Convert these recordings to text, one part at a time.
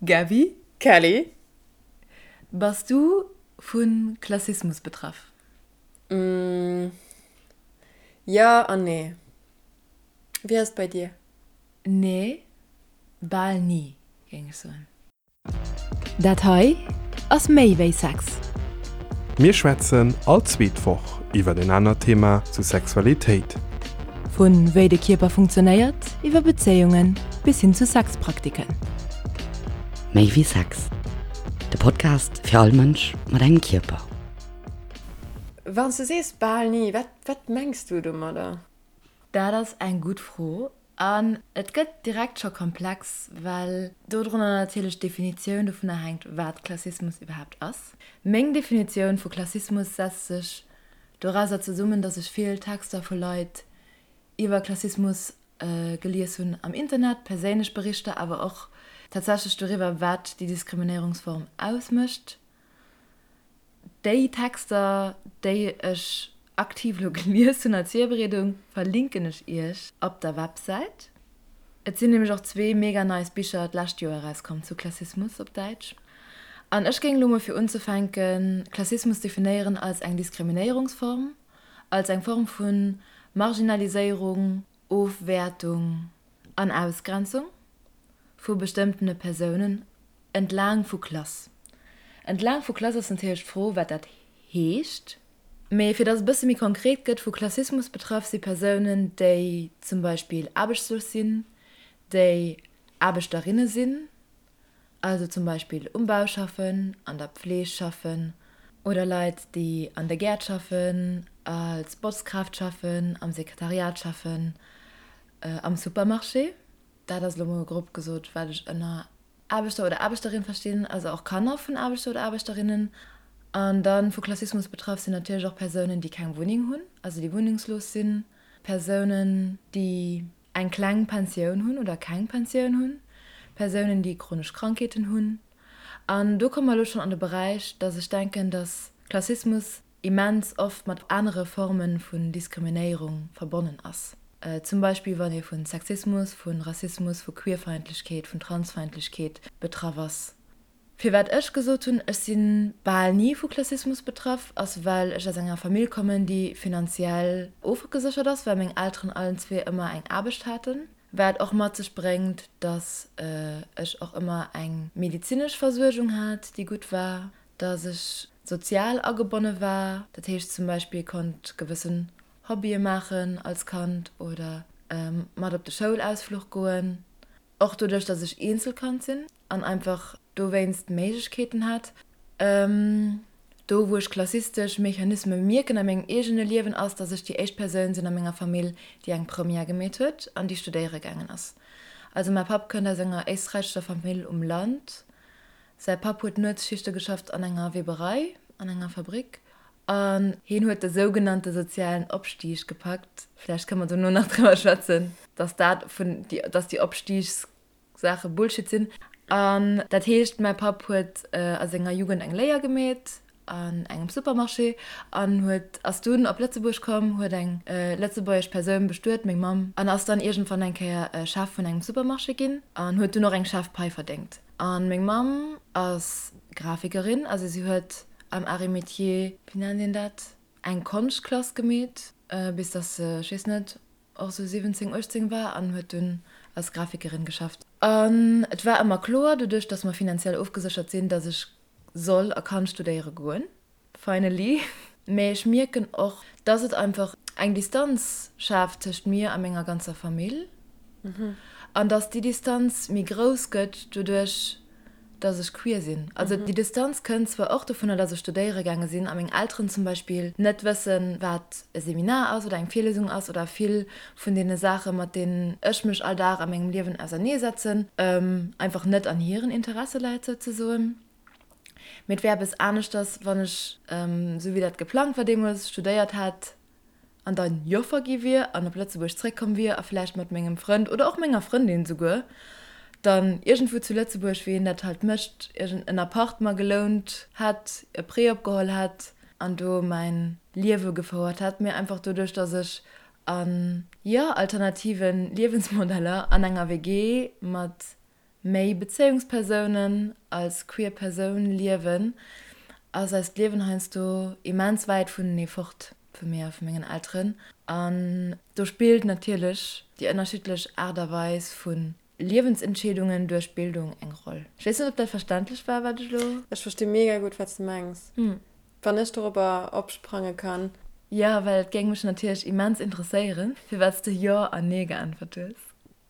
Gaby? Kelly? Bass du vu Klassismus betraff? Jo an nee. Wéi ass et bei dir? Nee, bal ni, géing ech soen. Dat hei ass méi wéi Sex. Mir schwätzen all zweet Woch iwwer en anert Thema zu Sexualitéit. Vu wéi de Kierper funktionéiert, iwwer Bezéiungen bis hin zu Sexpraktiken. Méi wéi Sex, de Podcast fir all Mënsch mat engem Kierper. Wann s de sees bal ni, wat wat mengs du domadder? Dat ass eng gutt Fro an et gëtt direkt scho komplex, well dodrunner natierlech d'Definitioun dovunner hänkt, wat Klassismus iwwerhaapt ass. Meng Definitioun vu Klassismus setzt sech dorauser zesummen, datt ech vill Texter vu Leit iwwer Klassismus gelies hunn am Internet, perséinlech Berichter, awer och tatsächlech doriwwer, wat déi Diskriminéierungsform ausmécht. Déi Texter, déi ech aktiv elo gelies hunn als Virbereedung, verlinken ech iech op der Websäit. Et sinn nämlech och zwee mega nice Bicher d'lescht Joer erauskomm zu Klassismus op Däitsch. An ech géing elo mol fir unzefänken Klassismus definéieren als eng Diskriminéierungsform, als eng Form vu Marginaliséierung, Ofwäertung an Ausgrenzung vu bestëmmtene Persounen Entlaang vu Klass. Entlaang vu Klass ass natierlech d'Fro, wat dat heescht. Mee fir datt et e bësse méi konkret gëtt, Vu Klassismus betraff si Persounen, déi zum Beispill aarbechtslos sinn, déi Aarbechterinne sinn, also zum Beispill um Bau schaffen, an der Pfleeg schaffen, oder Leit, déi an de Gäert schaffen, als Botzkraaft schaffen, am Sekretariat schaffen, am Supermarché. Dat ass elo mol grob gesot, wat ech ënner Aarbechter oder Aarbechterin verstinn, also och Kanner vun Aarbechter oder Aarbechterinnen. An da vu Klassismus betraff sinn natierlech och Persounen, déi keng Wunneng hunn, also déi wunnengslos sinn, Persounen, déi eng kleng Pensioun hunn oder keng Pensioun hunn, Persounen, déi chronesch Krankheeten hunn. An do komme mer elo schonn an de Beräich, dass ech denken, dass Klassismus immens oft mat anere Forme vun Diskriminéierung verbonnen ass. Zum Beispill wann ee vu Sexismus, vu Rassismus, vu Queerfeindlechkeet, vun Transfeindlechkeet betraff ass. Firwat ech gesot hunn, ech si bal ni vu Klassismus betraff, ass well ech aus enger Famill kommen, déi finanziell ofgeséchert ass, well meng Elteren allen zwee ëmmer eng Aarbecht haten. Wat och mat sech bréngt, dass ech och ëmmer eng medezinesch Versuergung hat, déi gutt war, dass ech sozial agebonne war, dat heescht zum Beispill konnt gewëssen Hobbye maachen als Kand oder mat op de Schoulausfluch goen. Och doduerch, dass ech Eenzelkand sinn an einfach dowéinst Méiglechkeeten hat. Do wou ech klassistesch Mechanisme mierken a mengem eegene Liewen ass, dass ech déi éischt Persoun sinn a menger Famill, déi eng Première gemeet huet an déi studéiere gaangen ass. Also mäi Papp kënnt aus enger éisträichescher Famill um Land. Säi Papp huet Nuetsschichte geschafft an enger Weberei, an enger Fabrik, an hien huet de sougenannte sozialen Opstieg gepackt. Vläicht kënne mer dono nach driwwer schwätzen, dass dat vun, dass déi Opstiegssache Bullshit sinn. An dat heescht, mäi Papp huet a senger Jugend eng Léier gemeet an engem Supermarché an huet, ass dunn op Lëtzebuerg komm, huet eng lëtzebuergesch Persoun bestuet, meng Mamm, an ass dann iergendwann eng Kéier Chef vun engem Supermarché ginn an huet dunn och eng Chefpai verdéngt. An meng Mamm ass Grafikerin, also si huet am Arts et Métiers, wéi nennt een dat, eng Konschtklass gemeet, bis dass se, ech weess net, och sou 17, 18 war an huet dunn als Grafikerin geschafft. An et war ëmmer kloer, doduerch dass mer finanziell ofgeséchert sinn, dass ech soll a kann studéiere goen. Finally. Mee ech mierken och, dass et einfach eng Distanz schaaft tëscht mir a menger ganzer Famill. An dass déi Distanz méi grouss gëtt doduerch, dass ech queer sinn. Also déi Distanz kënnt zwar och dovunner, dass ech studéiere gaange sinn a meng Elteren zum Beispill net wëssen, wat e Seminar ass oder eng Virlesung ass oder vill vun deene Saache mat deenen ech mech all Dag a mengem Liewen auserneesetzen, einfach net an hiren Interesse läit souzesoen. Mee et wär eppes aneschters, wann ech, esou wéi dat geplangt war deemools, studéiert hätt an dann Joffer gi wier an op Lëtzebuerg zréckkomm wier a vläicht mat mengem Frënd oder och menger Frëndin souguer dann iergendwou zu Lëtzebuerg, wéi een dat halt mécht, iergend en Appart mer gelount hätt, e Prêt opgeholl hätt an do mäin Liewe gefouert hätt. Mee einfach doduerch, dass ech an, jo, alternative Liewensmodeller an enger WG mat. méi Bezéiungspersounen als queer Persoun liewen, ass eist Liewen heiansdo immens wäit vunenee fort, vu mir a vu mengen Elteren. An do spillt natierlech déi ënnerschiddlech Aart a Weis vu Liewensentscheedungen duerch Bildung eng Roll. Ech weess net, ob dat verständlech war, wat ech elo. Ech versti mega gutt, wat s de mengs. Wann ech dorobber opsprange kann. Jo, well et géing mech natierlech immens interesséieren, firwat s de Jo an Nee geäntwert hues.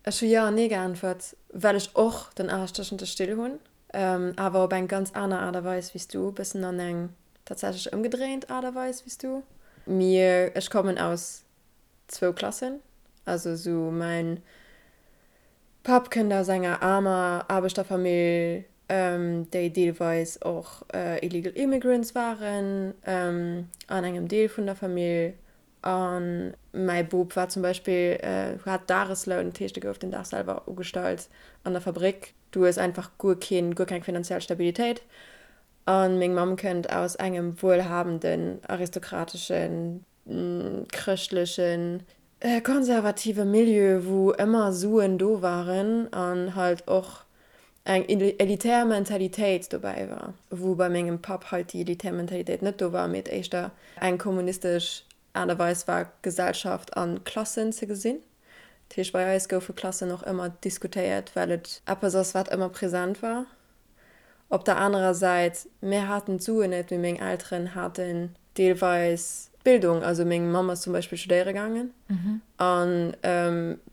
Ech hu Jo an Nee geäntwert, well ech och den Aarsch tëschent de Still hunn, awer op eng ganz aner Aart a Weis wéi s du, e bëssen an eng tatsächlech ëmgedréint Aart a Weis wéi s du. Mir, ech kommen aus zwou Klassen, also sou mäin Papp kënnt aus enger aarmer Aarbechterfamill, déi deelweis och illegal immigrants waren an engem Deel vun der Famill. A mäi Bop war zum Beispill, hat Dagesloun, dat heescht e gouf den Dag selwer ugestallt an der Fabrik. Du hues einfach guer keen, guer keng finanziell Stabilitéit. A meng Mamm kënnt aus engem wuelhabenden, aristokrateschen, chrëschtlechen, konservative Milieu, wou ëmmer Suen do waren an halt och eng elitär Mentalitéit dobäi war, wou bei mengem Papp halt déi elitär Mentalitéit net do war, mee et éischter eng kommunistesch Aart a Weis war, Gesellschaft a Klassen ze gesinn. Dat heescht, bei eis goufe Klassen och ëmmer diskutéiert, well et eppes ass, wat ëmmer present war. Op der anerer Säit, mir haten d'Suen net, mee meng Elteren haten deelweis d'Bildung. Also meng Mamm ass zum Beispill studéiere gaangen a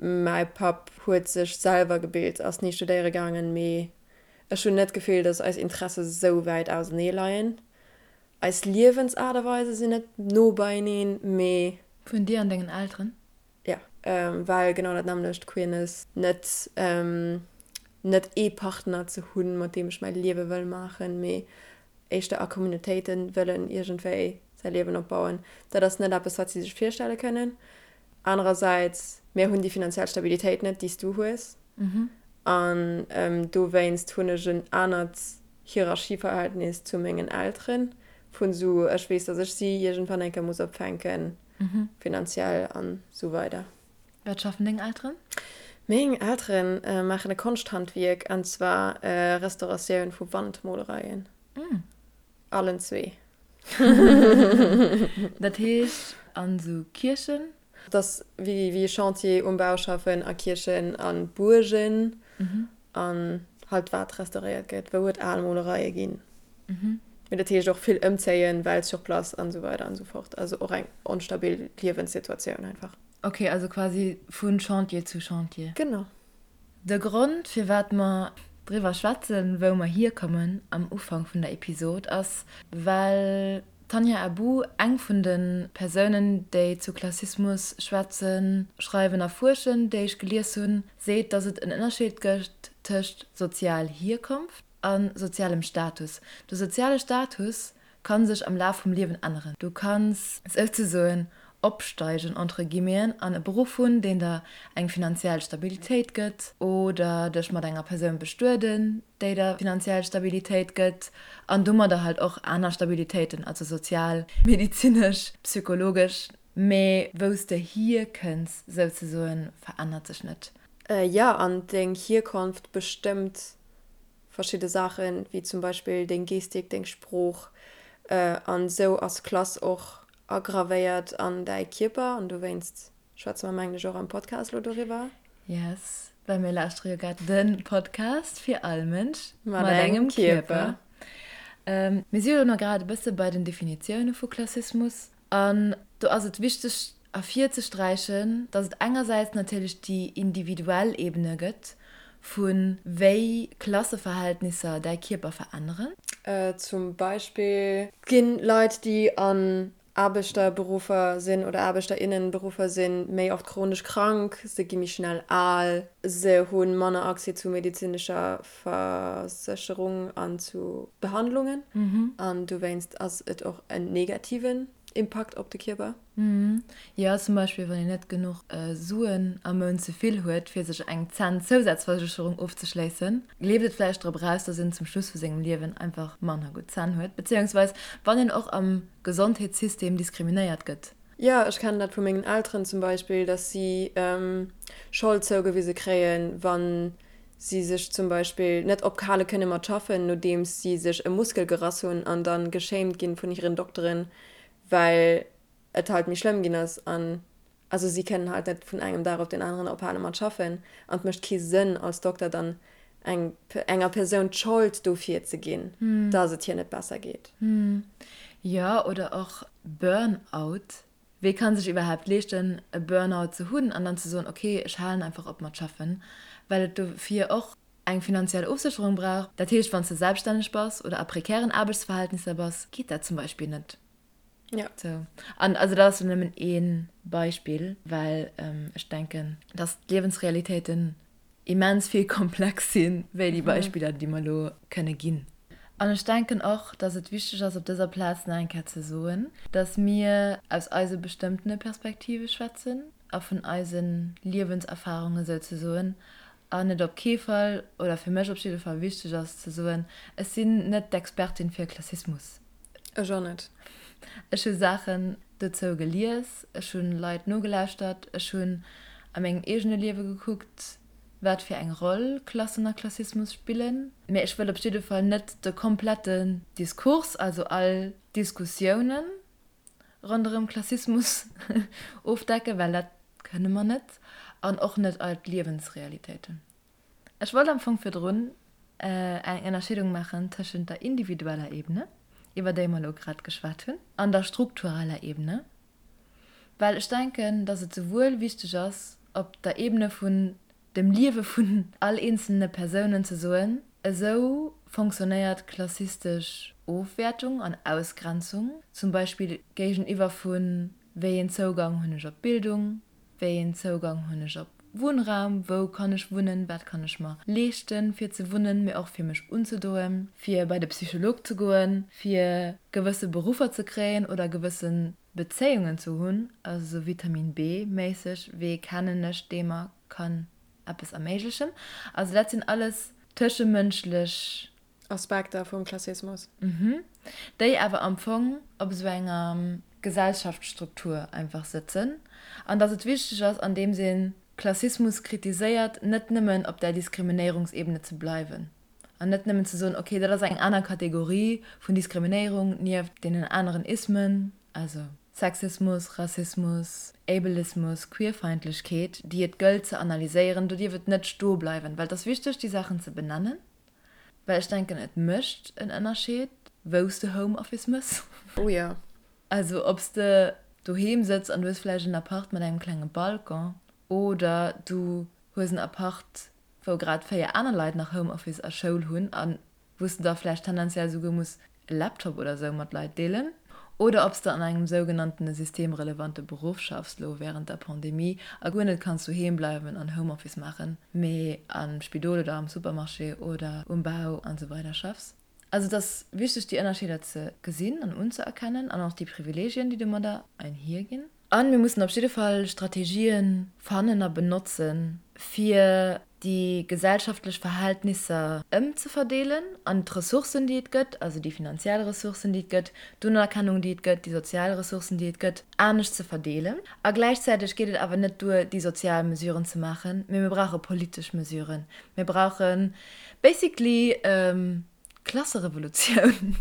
mäi Papp huet sech selwer gebilt, ass ni studéiere gaangen. Mee ech hunn net d'Gefill, datt eis Interesse sou wäit ausenee leien. Eis Liewensaart a Weise sinn net no beieneen, mee. Vun dir an dengen Elteren? Jo, well genau dat nämmlecht, Queerness, net net ee Partner ze hunn, mat deem ech mäi Liewe wëll maachen, mee éischter a Communautéite wëllen iergendwéi säi Liewen opbauen, dat ass net eppes, wat si sech virstelle kënnen. Anerersäits, mir hunn déi finanziell Stabilitéit net, déi s du hues. An dowéinst hunn ech en anert Hierarchieverhältnis zu mengen Elteren, vun esou, ech weess, datt ech si iergendwann eng Kéier muss opfänken, finanziell an esou weider. Wat schaffen deng Elteren? Meng Elteren maachen e Konschthandwierk, an zwar Restauratioun vu Wandmolereien. Allen zwee. Dat heescht an esou Kierchen? Et ass wéi e Chantier um Bau schaffen, a Kierchen a Buergen an halt wat restauréiert gëtt, wou et al Molereie ginn. Mee dat heescht och vill ëmzéien, well sur place an esou weider an esou fort. Also och eng onstabil Liewenssituatioun einfach. Ok, also quasi vu Chantier zu Chantier. Genau. De Grond firwat mer driwwer schwätzen, wou mer hierkommen am Ufank vun der Episod ass, well d'Tania Abbou eng vun de Persounen, déi zu Klassismus schwätzen, schreiwen a fuerschen, déi ech gelies hunn, seet, datt et en Ënnerscheed gëtt tëscht sozial Hierkonft a sozialem Status. De soziale Status kann sech am Laf vum Liewen änneren. Du kanns souzesoen opsteigen, entre guillemeten, an e Beruff hunn, deen der eng finanziell Stabilitéit gëtt, oder dech mat enger Persoun bestueden, déi der finanziell Stabilitéit gëtt, an domadder halt och aner Stabilitéiten, also sozial, medezinesch, psychologesch. Mee wou s de hierkënns, souzesoen, verännert sech net. Jo, an deng Hierkonft bestëmmt verschidde Saachen, wéi zum Beispill deng Gestik, deng Sprooch an esou ass Klass och agravéiert an däi Kierper an dowéinst schwätze mer mengen ech och am Podcast elo doriwwer. Yes, well mir lauschtere jo grad de Podcast fir all Mënsch mat engem Kierper. Mir si jo elo grad e bësse bei den Definitioune vu Klassismus An do ass et wichteg ervirzesträichen, dass et engersäits natierlech déi individuell Ebene gëtt, vu wéi Klasseverhältnisser däi Kierper veränneren. Zum Beispill ginn Leit, déi an Aarbechterberuffer sinn oder Aarbechterinnenberuffer sinn, méi oft chronesch krank, se gi méi schnell al, se hu manner Accès zu medezinescher Versécherung an zu Behandlungen an dowéinst ass et och en negativen Impakt op de Kierper. Jo, zum Beispill wann een net genuch Suen am Mount ze vill huet fir sech eng Zänn-Zousazversécherung ofzeschléissen, leeft et vläicht drop eraus, dass een zum Schluss vu sengem Liewen einfach manner gutt Zänn huet, beziéungsweis wann een och am Gesondheetssystem diskriminéiert gëtt. Jo, ech kennen dat vu mengen Elteren zum Beispill, dass si Schold zougewise kréien, wann. si sech zum Beispill net ophale kënne mat schaffen, nodeems si sech e Muskel gerass hunn an dann geshamed ginn vun hiren Dokteren, well et halt méi schlëmm ginn ass an also si kënnen halt net vun engem Dag op den aneren ophale mat schaffen an et mécht kee Sënn als Dokter dann eng enger Persoun d'Schold dofir ze ginn, dass et hir net besser geet. Jo, oder och Burnout, Wee kann sech iwwerhaapt leeschten e Burnout ze hunn an dann ze soen, ok, ech halen einfach op mat schaffen, well et dofir och eng finanziell Ofsécherung brauch. Dat heescht, wann s de selbststänneg bass oder a prekären Aarbechtsverhältnisser bass, geet dat zum Beispill net. Jo. Sou. An also dat ass jo nëmmen ee Beispill, well ech denken, dass d'Liewensrealitéiten immens vill komplex sinn, wéi déi Beispiller, déi mer elo kënne ginn. An ech denken och, dass et wichteg ass, op dëser Plaz nach eng Kéier ze soen, dass mir aus eise bestëmmtene Perspektive schwätzen a vun eise Liewenserfarunge souzesoen, an et op kee Fall, oder fir mech op jidde Fall wichteg ass ze soen, ech sinn net d'Expertin fir Klassismus. Ech och net. Ech hu Saachen dozou gelies, ech hu Leit nogelauschtert, ech hunn a mengem eegene Liewe gekuckt, wat fir eng Roll Klassen a Klassismus spillen. Mä ech wëll op jidde Fall net de kompletten Diskurs, also all Diskussiounen ronderëm Klassismus ofdecken, well dat kënne mer net, an och net all d'Liewensrealitéiten. Ech wollt am Fong virdrun eng Ënnerscheedung maachen tëschent der individueller Ebene, iwwer déi mer elo grad geschwat hunn, an der struktureller Ebene, well ech denken, dass et souwuel wichteg ass, op der Ebene vun dem Liewe vun all eenzelne Persounen ze soen, esou fonctionnéiert klassistesch Ofwäertung an Ausgrenzung, zum Beispill géigeniwwer vu wéi een Zougang hunn ech op Bildung, Wéi een Zougang hunn ech op Wunnraum, wou kann ech wunnen, wat kann ech mer leeschten fir ze wunnen, mee och fir mech unzedoen, fir bei de Psycholog ze goen, fir gewësse Beruffer ze kréien oder gewësse Bezéiungen ze hunn, also sou Vitamin B méisseg, wee kennen ech dee mer kann eppes erméiglechen. Also dat sinn alles tëschemënschlech. Aspekter vum Klassismus. Mhm. Déi awer am Fong op esou enger Gesellschaftsstruktur einfach sëtzen. An datt et wichteg ass, andeems ee Klassismus kritiséiert, net nëmmen op där Diskriminéierungsebene ze bleiwen an net nëmmen ze soen, okay, dat ass eng aner Kategorie vun Diskriminéierung nieft deenen aneren Ismen, also Sexismus, Rassismus, Ableismus, Queerfeindlechkeet, déi et gëllt ze analyséieren. Do dierf et net stoe bleiwen, well et ass wichteg, déi Saachen ze benennen. Well ech denken et mécht en Ënnerscheed wou s de Home Office mëss. Oh jo. Also ob s de doheem sëtz an du hues vläicht en Appart mat engem klenge Balcon oder du hues en Appart wou grad 4 aner Leit nach Home Office a Schoul hunn a wou s de da vläicht tendenziell souguer muss e Laptop oder sou mat Leit deelen, oder ob s de an engem sougenanntene systemrelevante Beruff schaffs, lo wärend der Pandemie, a guer net kanns doheem bleiwen an Homeoffice maachen, mee am Spidol oder am Supermarché oder um Bau an sou weider schaffs. Also et ass wichteg déi Ënnerscheeder ze gesinn an unzëerkennen an och déi Privileegien, déi domadder einhierginn. A mir mussen op jidde Fall Strategien fannen a benotzen, fir déi gesellschaftlech Verhältnisser ëmzeverdeelen an d'Ressourcen, déi et gëtt, also déi finanziell Ressourcen, déi et gëtt, d'Unerkennung, déi et gëtt, déi sozial Ressourcen, déi et gëtt, anescht ze verdeelen. A gläichzäiteg geet et awer net duer, déi sozial Mesuren ze maachen, mee mir brauche politesch Mesuren. Mir brauche basically d'Klasserevolutioun.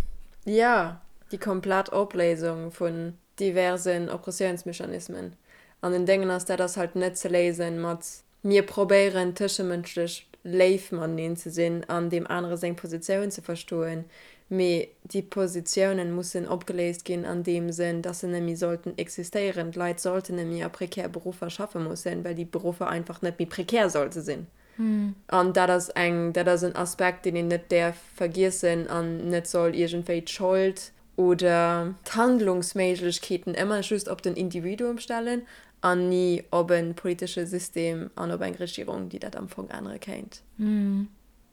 Jo, déi komplett Opléisung vun diversen Oppressiounsmechanismen. An den Déngen ass, dat ass halt net ze léisen mat mir probéieren tëschemënschlech léif mateneen ze sinn an deem anere seng Positioun ze verstoen, mee déi Positiounen mussen opgeléist ginn an deem Sënn, dass se net méi sollten existéieren. D'Leit sollten net méi a prekär Beruffer schaffe mussen, well déi Beruffer einfach net méi prekär sollte sinn. An dat ass eng, dat ass en Aspekt, deen een net däerf vergiessen an net soll iergendwéi d'Schold oder d'Handlungsméiglechkeeten ëmmer just op den Individuum stellen an ni op e politesche System an op eng Regierung, déi dat am Fong ännere kéint.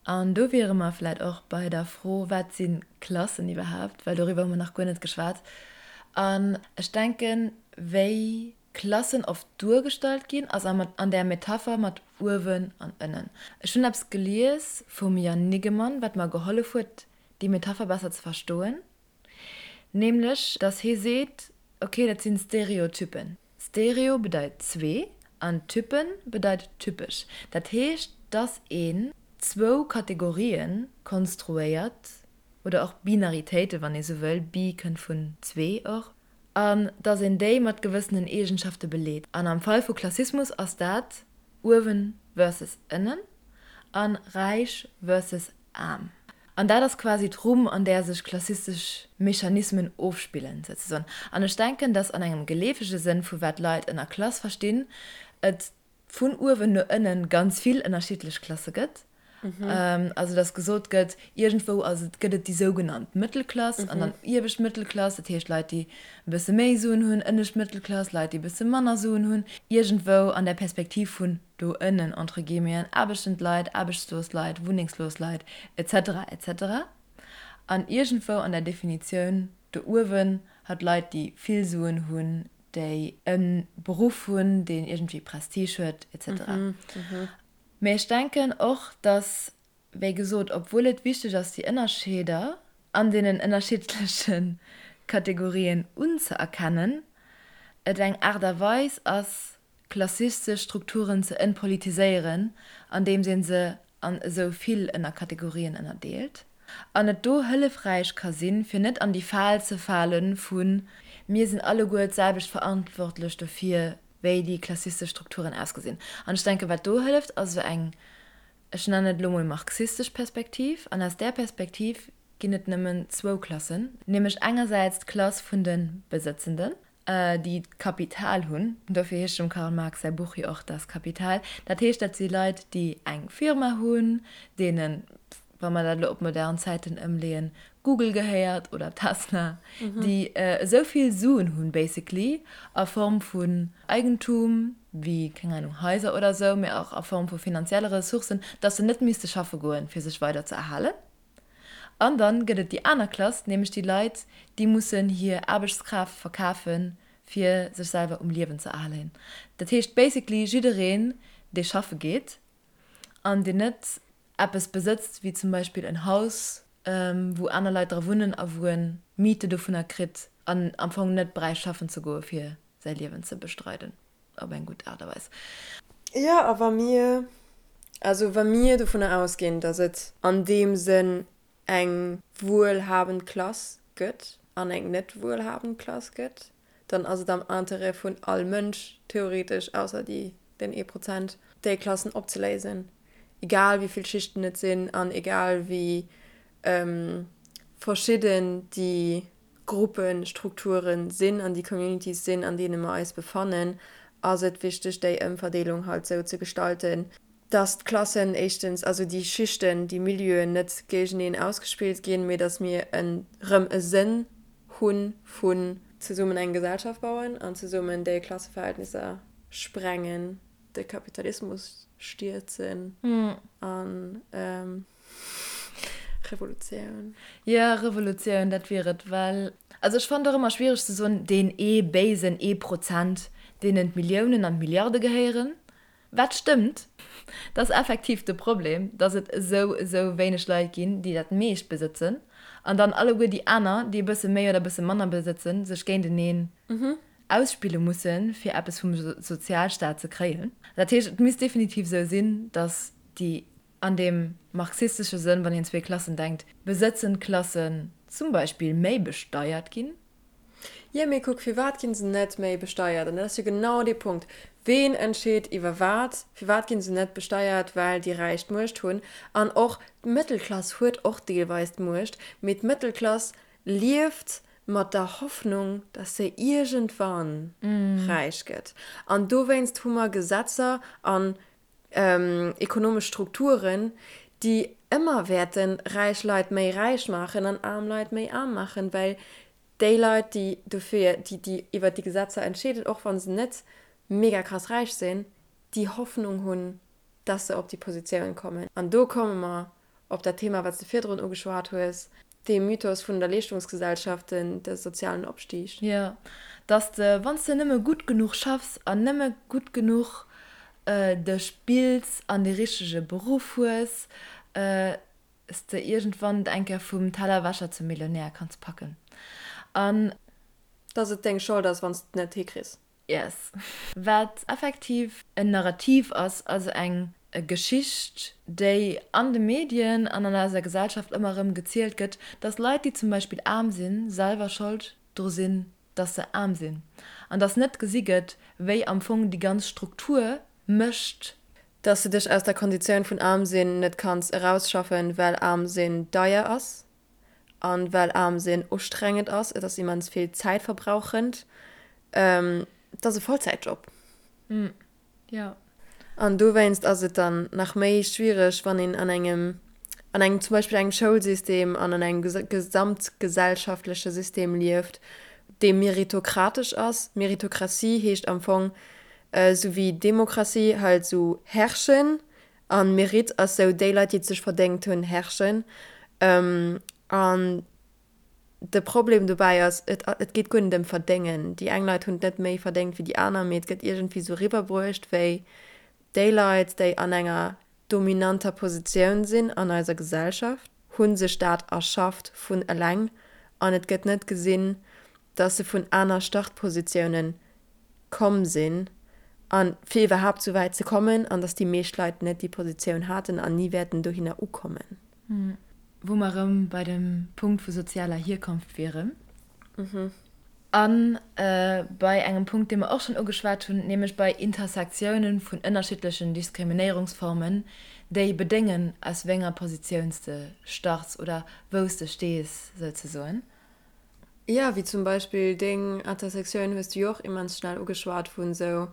An do wiere mer vläit och bei der Fro, Wat si Klassen iwwerhaapt? Well doriwwer hu mer nach guer net geschwat. An ech denken, wéi Klassen oft duergestallt ginn, ass an där Metapher mat uewen an ënnen. Ech hunn eppes gelies vum Jan Niggemann, wat mer gehollef huet, déi Metapher besser ze verstoen, nämlech dass hie seet, ok, dat sinn Stereotypen. Stereo bedeit zwee an Typen bedeit typesch. Dat heescht, dass een. zwou Kategorien konstruéiert, oder och Binaritéiten, wann ee sou wëll, bi kënnt vun zwee och, an dass een déi mat gewëssenen Eegenschafte beleet. An am Fall vu Klassismus ass dat uewen versus ënnen an räich versus aarm. An dat ass quasi d'Rumm, an där sech klassistesch Mechanismen ofspillen, souzesoen. An ech denken, dass an engem geleefege Sënn vu wat Leit ënner Klass verstinn, et vun uewen no ënnen ganz vill ënnerschiddlech Klasse gëtt. Also dass gesot gëtt, iergendwou ass et, gëtt et déi sougenannt Mëttelklass an dann iewescht Mëttelklass, dat heescht Leit, déi e bësse méi Suen hunn, ënnescht Mëttelklass, Leit, déi e bësse manner Suen hunn, iergendwou an der Perspektiv vun do ënnen, entre guillemeten, aarbechtend Leit, aarbechtslos Leit, wunnengslos Leit, et cetera, et cetera. An iergendwou an der Definitioun do uewen hat Leit, déi vill Suen hunn, déi e Beruff hunn, deen iergendwéi Prestige huet, et cetera. Mee ech denken och, dass, wéi gesot, obwuel et wichteg ass, déi Ënnerscheeder an deenen ënnerschiddleche Kategorien unzëerkennen, et eng Aart a Weis ass, klassistesch Strukturen ze entpolitiséieren, andeems ee se an esou vill Ënnerkategorien ënnerdeelt, an et do hëllefräich ka sinn, fir net an déi Fal ze fale vu mir sinn alleguer d'selwecht verantwortlech dofir, wéi déi klassistesch Strukturen ausgesinn. An ech denken, wat do hëlleft, ass esou eng, ech nennen et elo mol marxistesch Perspektiv. An aus där Perspektiv ginn et nëmmen zwou Klassen, nämlech engersäits d'Klass vun de Besëtzenden, déi d'Kapital hunn, dofir heescht dem Karl Marx säi Buch jo och Das Kapital, dat heescht, dat si Leit, déi eng Firma hunn, deenen, wa mer dat elo op modern Zäiten ëmleeën, Google gehéiert oder Tesla, déi esou vill Suen hunn, basically, a Form vun Eigentum, wéi, keng Ahnung, Haiser oder esou, mee och a Form vu finanzielle Ressourcen, dass se net misste schaffe goen, fir sech weider ze erhalen. An dann gëtt et déi aner Klass, nämlech déi Leit, déi mussen hir Aarbechtskraaft verkafen, fir sech selwer um Liewen ze erhalen. Dat heescht basically jiddereen, dee schaffe geet an deen net eppes besëtzt, wéi zum Beispill en Haus, wou aner Leit dra wunnen a wou en Miete dovunner kritt an am Fong net bräicht schaffen ze goe fir säi Liewen ze bestreiden op eng gutt Aart a Weis. Jo, a wa mir, also wa mir dovunner ausginn, datt et an deem Sënn eng wuelhabend Klass gëtt an eng net wuelhabend Klass gëtt, dann ass et am Interêt vun all Mënsch, theoretesch, ausser déi, den ee Prozent, déi Klassen opzeléisen, egal wéi vill Schichten et sinn an egal wéi verschidden déi Gruppestrukture sinn an déi Communities sinn, an deene mer eis befannen, ass et wichteg, déi Ëmverdeelung halt esou ze gestalten, dass d'Klassen éischtens, also déi Schichten, déi Milieuen net géigeneen ausgespillt ginn, mee dass mir erëm e Sënn hu vun zesummen eng Gesellschaft bauen an zesummen déi Klasseverhältnisser sprengen, de Kapitalismus stierzen an Revolutioun. Jo, Revolutioun, dat wier et, well, also ech fannen et och ëmmer schwiereg ze soen, deen ee béisen ee Prozent, deenen d'Milliounen an d'Milliarde gehéieren. Wat stëmmt, dat ass effektiv de Problem, datt et esou, esou wéineg Leit ginn, déi dat meescht besëtzen, an dann alleguer déi aner, déi e bësse méi oder e bësse manner besëtzen, sech géinteneen ausspille mussen, fir eppes vum Sozialstaat ze kréien. Dat heescht, et misst definitiv esou sinn, datt déi an deem marxistesche Sënn, wann een zwee Klassen denkt, besëtzend Klassen zum Beispill méi besteiert ginn. Jo, mee kuck, firwat ginn se net méi besteiert? An dat ass jo genau dee Punkt. Ween entscheet iwwer wat? Firwat ginn se net besteiert? Well déi Räich d'Muecht hunn. An och d'Mëttelklass huet och deelweis d'Muecht, mee d'Mëttelklass lieft mat der Hoffnung, dass se iergendwann räich gëtt. An dowéinst hu mer Gesetzer an ekonomesch Strukturen, déi ëmmer wäerte räich Leit méi räich maachen an aarm Leit méi aarm maachen, well déi Leit, déi dofir, déi, déi iwwert déi Gesetzer entscheeden, och wa se net mega krass räich sinn, déi Hoffnung hunn, dass se op déi Positioun kommen. An do komme mer op dat Thema, wat s de virdrun ugeschwat hues, dee Mythos vun der Leeschtungsgesellschaft, den, de sozialen Opstig. Jo, dass de, wann s de nëmme gutt genuch schaffs an nëmme gutt genuch dech bilds an dee richtege Beruff hues, s de iergendwann et eng Kéier vum Tellerwäscher zum Millionär kanns packen. An. Dass et deng Schold ass, wann s de et net hikriss. Yes. Wat effektiv en Narrativ ass, also eng. Geschicht, déi an de Medien an an eiser Gesellschaft ëmmer erëm gezielt gëtt, dass Leit, déi zum Beispill aarm sinn, selwer Schold dru sinn, dass se aarm sinn, an dass net gesi gëtt, wéi am Fong déi ganz Struktur mécht. Dass de dech aus der Konditioun vun aarm sinn net kanns erausschaffen, well aarm sinn deier ass an well aarm sinn ustrengend ass, et ass immens vill zäitverbrauchend, et ass e Vollzäitjob. Jo. An dowéinst ass et dann nach méi schwiereg, wann een an engem, an engem, zum Beispill engem Schoulsystem an an engem gesamtgesellschaftleche System lieft, dee meritokratesch ass. Meritokratie heescht am Fong, esou wéi Demokratie, halt esou herrschen. An Mérite ass esou, déi Leit, déi et sech verdéngt hunn, herrschen. An De Problem dobäi ass, et et geet guer net ëm verdéngen. Déi eng Leit hunn et net méi verdéngt wéi déi aner, mee et gëtt iergendwéi sou riwwerbruecht, wéi déi Leit, déi an enger dominanter Positioun sinn an eiser Gesellschaft, hu sech dat erschafft vun eleng an et gëtt net gesinn, dass se vun aner Startpositiounen komm sinn a fir iwwerhaapt sou wäit ze kommen an dass déi meescht Leit net déi Positioun haten an ni wäerten dohinner ukommen. Wou mer erëm bei dem Punkt vu sozialer Hierkonft wieren. A bei engem Punkt, dee mer och schonn ugeschwat hunn, nämlech bei Intersektiounen vun ënnerschiddlechen Diskriminéierungsformen, déi bedéngen, aus wéi enger Positioun s de starts oder wou s de stees, souzesoen. Jo, wéi zum Beispill deng Intersektioun hues du jo och immens schnell ugeschwat vun esou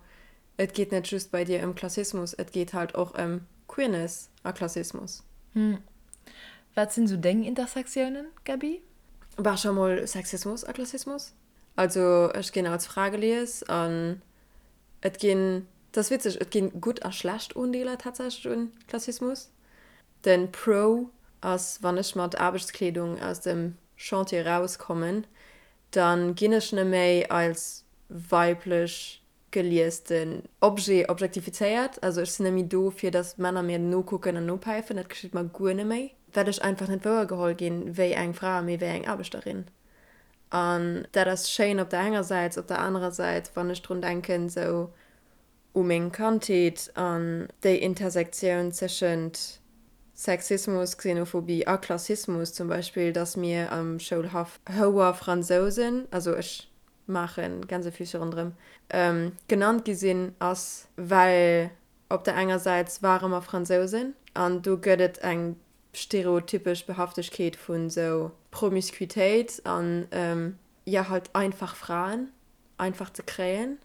Et geet net just bei dir ëm Klassismus, et geet halt och ëm Queerness a Klassismus. Hm. Wat sinn sou deng Intersectiounen, Gaby? Bah, scho mol Sexismus a Klassismus. Also ech ginn als Fra gelies an et ginn, et ass witzeg, et ginn gutt a schlecht Undeeler tatsächlech un Klassismus. Den Pro ass, wann ech mat Aarbechtskleedung aus dem Chantier rauskommen, dann ginn ech neméi als weiblech gelies den Objet objektifizéiert. Also ech sinn net méi do fir datt Männer mir nokucken an nopäifen, dat geschitt mer guer net méi, well ech einfach net wouergeholl ginn wéi eng Fra, mee wéi eng Aarbechterin. An dat ass schéin op der enger Säit, op der anerer Säit, wann ech drun denken esou u meng Kandheet an déi Intersektioun tëschent Sexismus, Xenophobie a Klassismus zum Beispill, datt mir am Schoulhaff Houer-Fransousen, also ech maachen, Gänsefüßche ronderëm, genannt gi sinn, ass, well op der enger Säit ware mer Fransousen an do gëtt et eng stereotypesch Behaftegkeet vun esou Promiscuitéit an, jo, halt einfach Fraen einfach ze kréien.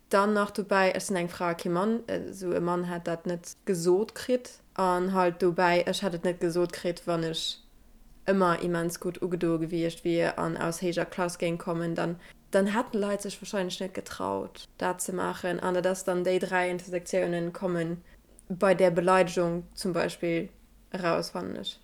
Dann nach dobäi, ech sinn eng Fra a kee Mann, esou e Mann hätt dat net gesot kritt. An halt dobäi, ech hätt et net gesot kritt, wann ech ëmmer immens gutt ugedoe gewiescht wier an aus héijer Klass géing kommen, dann, dann hätten Leit sech wahrscheinlech net getraut, dat ze maachen. An dat ass dann, déi 3 Intersektiounen komme bei där Beleidegung zum Beispill eraus, fannen ech.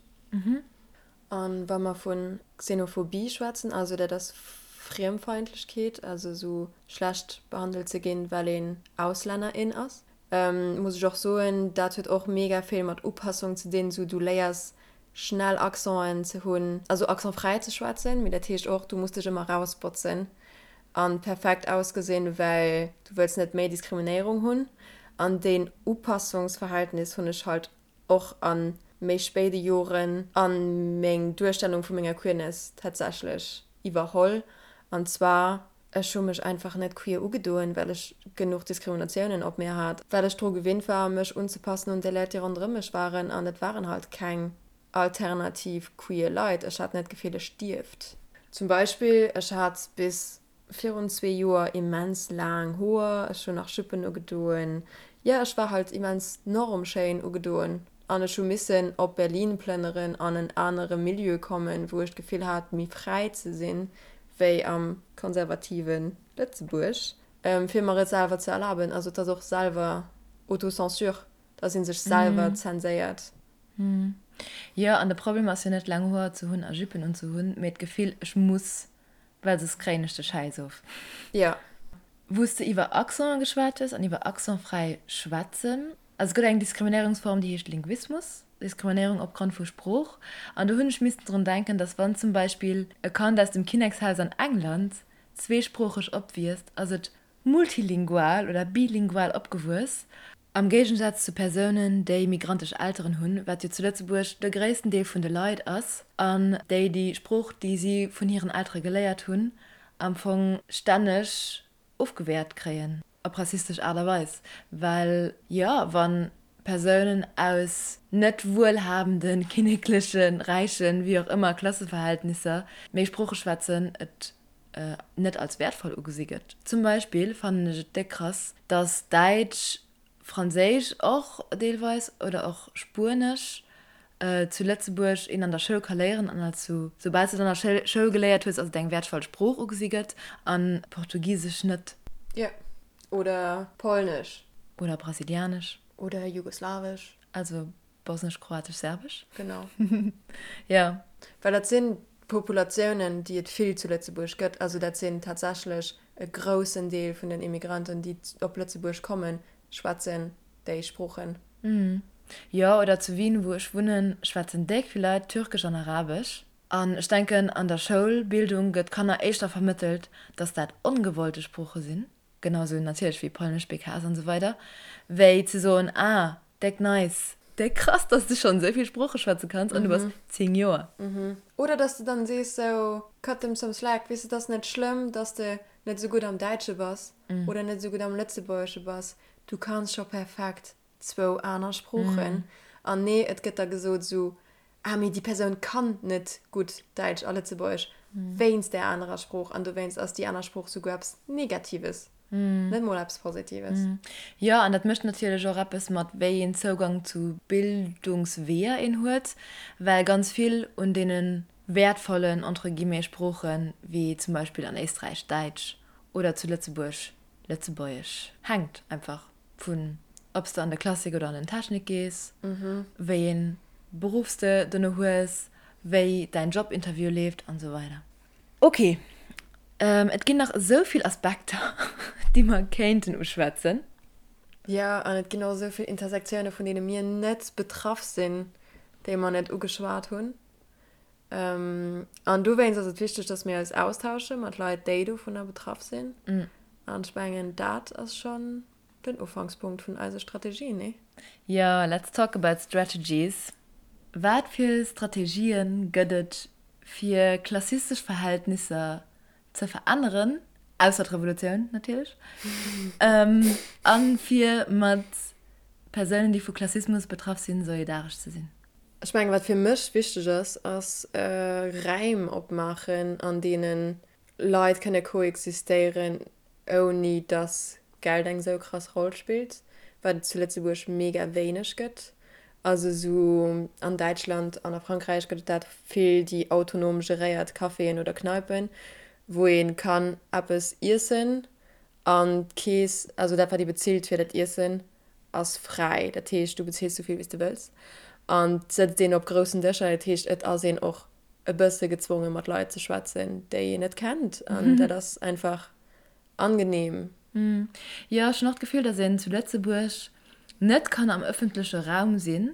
A wa mer vu Xenophobie schwätzen, also dat ass Friemfeindlechkeet, also esou schlecht behandelt ze ginn, well een Auslänner, in ass, muss ech och soen, dat huet och mega vill mat Upassung ze dinn. Esou du léiers schnell Accenten ze hunn, also accentfräi ze schwätzen, mee dat heescht och, du muss dech ëmmer erausbotzen a perfekt ausgesinn, well du wëlls net méi Diskriminéierung hunn. An deen Upassungsverhältnis hunn ech halt och a méi spéide Joren a meng Duerstellung vu menger Queerness tatsächlech iwwerholl. An zwar, ech hu mech einfach net queer ugedoen, well ech genuch Diskriminatiounen op mir hat, well ech dru gewinnt war, mech unzepassen un déi Leit, déi ronderëm mech waren. An et waren halt keng alternativ queer Leit. Ech hat net d'Gefill, ech dierft. Zum Beispill, ech hat bis Virun zwee Joer immens laang Hoer, ech hunn nach Juppen ugedoen, jo ech war halt immens normschéin ugedoen an ech hu missen op Berlin plënneren an en anere Milieu kommen, wou ech d'Gefill hat méi fräi ze sinn wéi am konservative Lëtzebuerg, fir mer et selwer ze erlaben. Also et ass och selwer Autocensure, dass ee sech selwer zenséiert. Jo, an de Problem ass jo net laang Hoer ze hunn a Juppen unzehunn, mee d'Gefill ech muss Well soss kréien ech de Schäiss of. Jo. Wou s de iwwer Accenten geschwat hues an iwwer accentfräi schwätzen. Also et gëtt eng Diskriminéierungsform, déi heescht Linguismus, Diskriminéierung opgrond vu Sprooch. An do hunn ech missten drun denken, datt wann zum Beispill e Kand aus dem Kinnekshaus an England zweesproocheg opwiisst, ass et multilingual oder bilingual opgewuess. Am Géigensaz zu Persounen, déi migrantesch Elteren hunn, wat jo zu Lëtzebuerg de gréissten Deel vun de Leit ass, an déi déi Sprooch, déi si vun hiren Eltere geléiert hunn, am Fong stänneg ofgewäert kréien, op rassistesch Aart a Weis. Well jo, wa Persounen aus net wuelhabenden, kinneklechen, räichen, wéi och ëmmer Klasseverhältnisser méi Sprooche schwätzen, et net als wäertvoll ugesi gëtt. Zum Beispill fannen ech et déck krass, dass Däitsch, Franséisch och deelweis oder och Spuenesch zu Lëtzebuerg een an der Schoul ka léieren an als sou, soubal s de et an der Schoul geléiert hues, ass et eng wäertvoll Sprooch ugesi gëtt an Portugisesch net. Jo, oder Polnesch. Oder Brasilianesch. Oder Jugoslawesch. Also Bosnesch, Kroatesch, Serbesch. Genau. Jo. Well dat sinn Populatiounen, déi et vill zu Lëtzebuerg gëtt. Also dat sinn tatsächlech e groussen Deel vun den Immigranten, déi op Lëtzebuerg kommen, schwätzen déi Sproochen. Jo, oder zu Wien, wou ech wunnen, schwätzen déck vill Leit Türkesch an Arabesch. An ech denken, an der Schoulbildung gëtt Kanner éischter vermëttelt, dass dat ongewollte Sprooche sinn. Genau sou natierlech wéi Polnesch, BKS an esou weider, wéi ze soen, ah, déck nice, déck krass, dass de schonn esou vill Sprooche schwätze kanns an du bass 10 Joer. Oder dass de dann sees sou, cut them some slack, weess de, et ass net schlëmm, dass de net esou gutt am Däitsche bass oder net esou gutt am Lëtzebuergesche bass, du kanns scho perfekt zwou aner Sproochen. An nee, et gëtt da gesot sou, ah mee déi Persoun kann net gutt Däitsch a Lëtzebuergesch wéinst där anerer Sprooch an dowéinst ass déi aner Sprooch souguer eppes Negatives, net mol eppes Positives. Jo, an dat mécht natierlech och eppes mat wéi een Zougang zu Bildungsweeër een huet, well ganz vill un deene wäertvollen, entre guillemets, Sproochen, wéi zum Beispill an Éisträich Däitsch oder zu Lëtzebuerg Lëtzebuergesch, hänkt einfach. Vun ob s de an de Klassik oder an den Technik gees, wéi een Beruff s de dono hues, wéi däin Jobinterview leeft an esou weider. Ok, et ginn nach esou vill Aspekter, déi mer kéinten uschwätzen. Jo, an et ginn och esou vill Intersektioune vun deene mir net betraff sinn, déi mer net ugeschwat hunn. An dowéinst ass et wichteg, dass mir eis austausche mat Leit, déi dovunner betraff sinn. An ech mengen, dat ass schonn den Ufankspunkt vun eise Strategien, nee? Jo, let's talk about strategies. Wat fir Strategië gëtt et, fir klassistesch Verhältnisser ze veränneren, ausser d'Revolutioun natierlech, a fir mat Persounen, déi vu Klassismus betraff sinn, solidaresch ze sinn? Ech mengen, wat fir mech wichteg ass, ass Räim opmaachen, an deene Leit kënne koexistéieren, ouni dass Geld eng sou krass Roll spillt, wat et zu Lëtzebuerg mega wéineg gëtt. Also sou an Däitschland an a Frankräich gëtt et dat vill, déi autonom geréiert Caféen oder Kneipen, wou ee kann eppes iessen an d'Keess, also dat wat ee bezilt fir dat Iessen, ass fräi. Dat heescht, du bezills sou vill wéi s de wëlls an et sëtzt een op groussen Dëscher. Dat heescht, et ass een och e bësse gezwonge mat Leit ze schwätzen, déi een net kennt an dat ass einfach angenehm. Jo, ech hunn och d'Gefill, dass een zu Lëtzebuerg net kann am ëffentleche Raum sinn,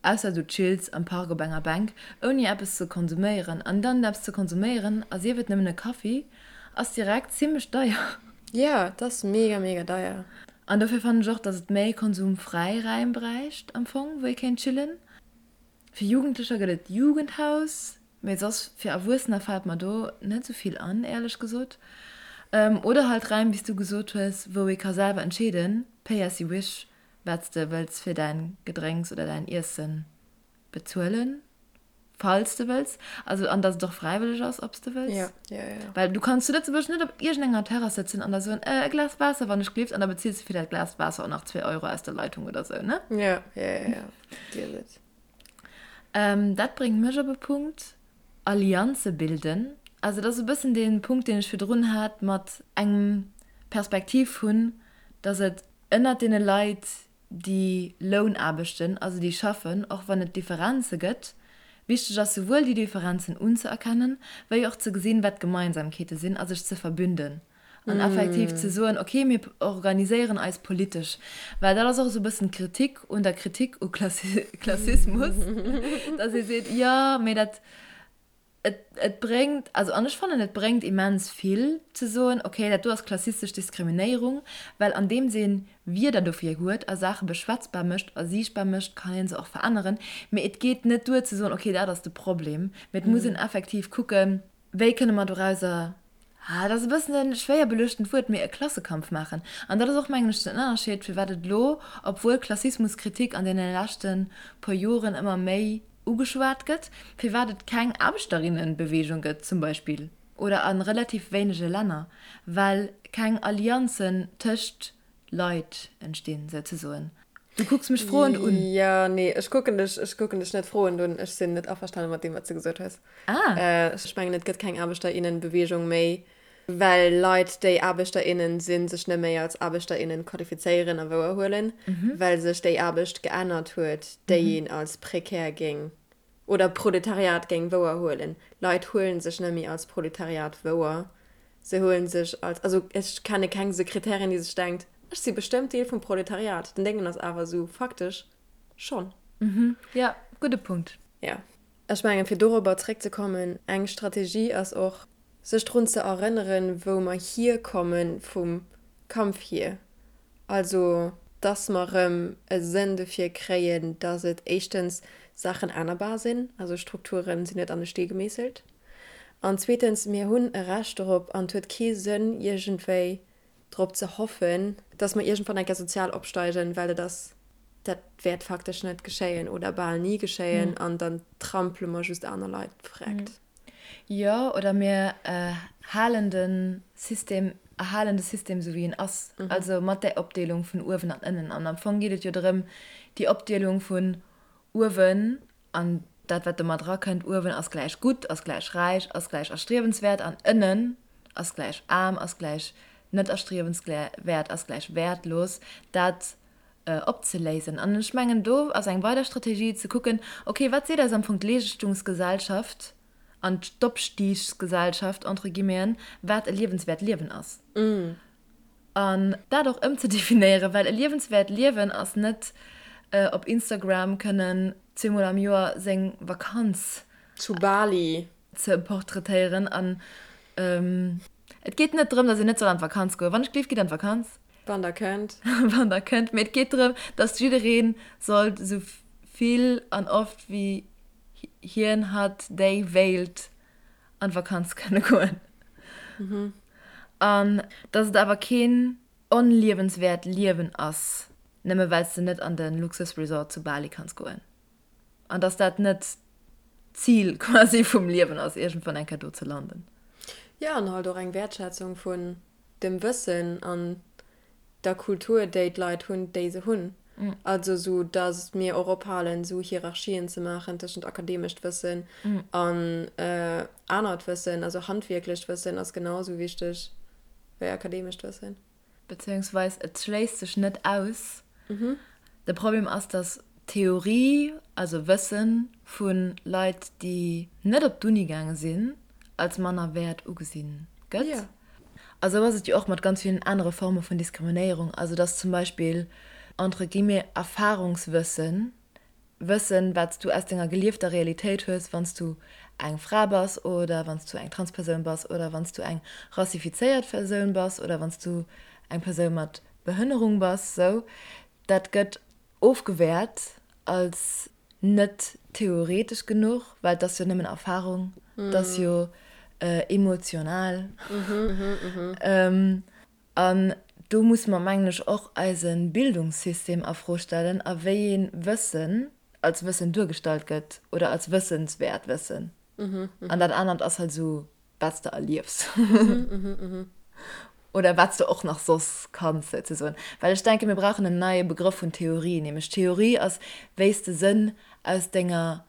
ausser du chills am Park op enger Bänk, ouni eppes ze konsuméieren. An dann eppes ze konsuméieren, a sief et nëmmen e Kaffi, ass direkt zimmlech deier. Jo, et ass mega, mega deier. An dofir fannen ech och, dass et méi konsumfräi Räim bräicht am Fong, wou ee kéint chillen. Fir Jugendlecher gëtt et d'Jugendhaus, mee soss fir Erwuessener fält mer do net esou vill an, éierlech gesot. Oder halt Räim, wéi s du gesot hues, wou ee ka selwer entscheeden, pay as you wish, wat s de wëlls fir däin Gedrénks oder däin Iessen bezuelen, falls de wëlls. Also an datt et och fräiwëlleg ass, ob s de wëlls. Ja, ja, ja. Well du kanns zu Lëtzebuerg net op iergendenger Terrass sëtzen an da soen, e Glas Waasser, wann ech gelift, an da bezills de fir dat Glas Waasser och nach zwee Euro aus der Leitung oder sou, ne? Ja, ja, ja, ja. Dir et. Dat bréngt mech op e Punkt, Allianze bilden. Also dat ass e bëssen dee Punkt, deen ech virdrun hat mat engem Perspektiv hunn, datt et ënnert deene Leit, déi Lounaarbechten, also déi schaffen, och wann et Differenze gëtt, wichteg ass souwuel déi Differenzen unzëerkennen, wéi och ze gesinn, wat d'Gemeinsamkeete sinn a sech ze verbünden an effektiv ze soen, okay, mir organiséieren eis politesch. Well dat ass och esou e bëssen d'Kritik un der Kritik u Klassismus, datt ee seet, jo, mee dat. Et, et bréngt, also an ech fannen, et bréngt immens vill ze soen, okay, dat do ass klassistesch Diskriminéierung, well andeems ee Wierder dofir huet a Saache beschwätzbar mécht a siichtbar mécht, kann ee se och veränneren. Mee et geet net duer ze soen, okay, dat ass de Problem, mee et muss een effektiv kucken, wéi kënne mer dorauser, ah, dat ass e bëssen e schwéier beluechtent Wuert, mee e Klassekampf maachen. An dat ass och, mengen ech, den Ënnerscheed, firwat et elo, obwuel Klassismuskritik an deene leschte puer Joren ëmmer méi ugeschwat gëtt, firwat et keng Aarbechterinnenbewegung gëtt zum Beispill, oder a relativ wéinege Länner, well keng Allianzen tëscht Leit entstinn, souzesoen. Du kucks mech froend un. Jo, nee, ech kucken dech, ech kucken dech net froend un. Ech sinn net averstane mat deem, wat s de gesot hues. Ah. Ech mengen, et gëtt keng Aarbechterinnenbewegung méi, well Leit, déi Aarbechter, innen sinn, sech net méi als Aarbechter, innen qualifizéieren a wouerhuelen, well sech déi Aarbecht geännert huet, déi een als prekär géing oder Proletariat géing wouerhuelen. Leit huelen sech net méi als Proletariat wouer, se huelen sech als, also ech kenne keng Sekretärin, déi sech denkt, ech si bestëmmt Deel vum Proletariat. Den Déngen ass awer esou, faktesch schonn. Jo, gudde Punkt. Jo. Ech mengen, fir dorobber zréckzekommen, eng Strategie ass och, sech drun ze erënneren, wou mer hierkomme vum Kampf hier. Also, dass mer erëm e Sënn dofir kréien, dass et éischtens Saachen ännerbar sinn, also Strukture sinn net an e Stee gemeesselt, an zweetens, mir hunn e Recht dorop an et huet kee Sënn iergendwéi drop ze hoffen, dass mer iergendwann eng Kéier sozial opsteigen, well dat ass, dat wäert faktesch net geschéien oder bal ni geschéien an dann trampele mer just aner Leit vreckt. Jo, oder mir halen de System, erhalen de System esou wéi en ass, also mat där Opdeelung vun uewen an ënnen. An am Fong geet et jo drëm, déi Opdeelung vun uewen an dat wat domat erakënnt, uewen ass gläich gutt, ass gläich räich, ass gläich erstriewenswäert an ënnen ass gläich aarm, ass gläich net erstriewenswäert, ass gläich wäertlos, dat opzeléisen. An ech mengen, do ass eng weider Strategie ze kucken, okay, wat seet eis am Fong d'Leeschtungsgesellschaft an d'Opstiegsgesellschaft, entre guillemeten, wat e liewenswäert Liewen ass. An dat och ëmzedefinéieren, well e liewenswäert Liewen ass net op Instagram kënnen zweemol am Joer seng Vakanz Zu Bali. ze portraitéieren. An et geet net drëm, datt een net soll an d'Vakanz goen. Wann ech gleef, gitt an d'Vakanz. Wann der kënnt. Wann der kënnt. Mee et geet drëm, datt jidderee sollt esou vill an oft wéi hien, hatt, déi wéilt an d'Vakanz kënne goen. An datt et awer keen onliewenswäert Liewen ass, nëmme well s de net an de Luxusresort zu Bali kanns goen. An datt dat net d'Zil quasi vum Liewen ass, iergendwann eng Kéier do ze landen. Jo, an halt och eng Wäertschätzung vun dem Wëssen an der Kultur, déi d'Leit hunn, déi se hunn. Also sou datt mir och ophalen, sou Hierarchien ze maachen tëschent akademescht Wëssen an anert Wëssen. Also handwierklecht Wëssen ass genau sou wichteg wéi akademescht Wëssen. Beziehungsweis et schléisst sech net aus. De Problem ass, datt Theorie, also Wëssen vu Leit, déi net op d'Uni gaange sinn, als manner wäert ugesi gëtt. A sou ass et jo och mat ganz villen anere Forme vun Diskriminéierung, also dass zum Beispill entre guillemets Erfahrungswëssen, Wëssen, wat s du aus denger geliefter Realitéit hues, wann s du eng Fra bass oder wann s du eng Transpersoun bass oder wann s du eng rassifizéiert Persoun bass oder wann s du eng Persoun mat Behënnerung bass, sou, dat gëtt ofgewäert als net theoretesch genuch, well et ass jo nëmmen Erfahrung, et ass jo emotional. An do musse mer, mengen ech, och eise Bildungssystem a Fro stellen a wéi ee Wëssen als Wëssen duergestallt gëtt oder als wëssenswäert Wëssen. An dat anert ass halt esou wat s de erliefs oder wat s de och nach soss kanns souzesoen. Well ech denken, mir brauchen en neie Begrëff vun Theorie, nämlech Theorie ass, wéi s de Sënn aus denger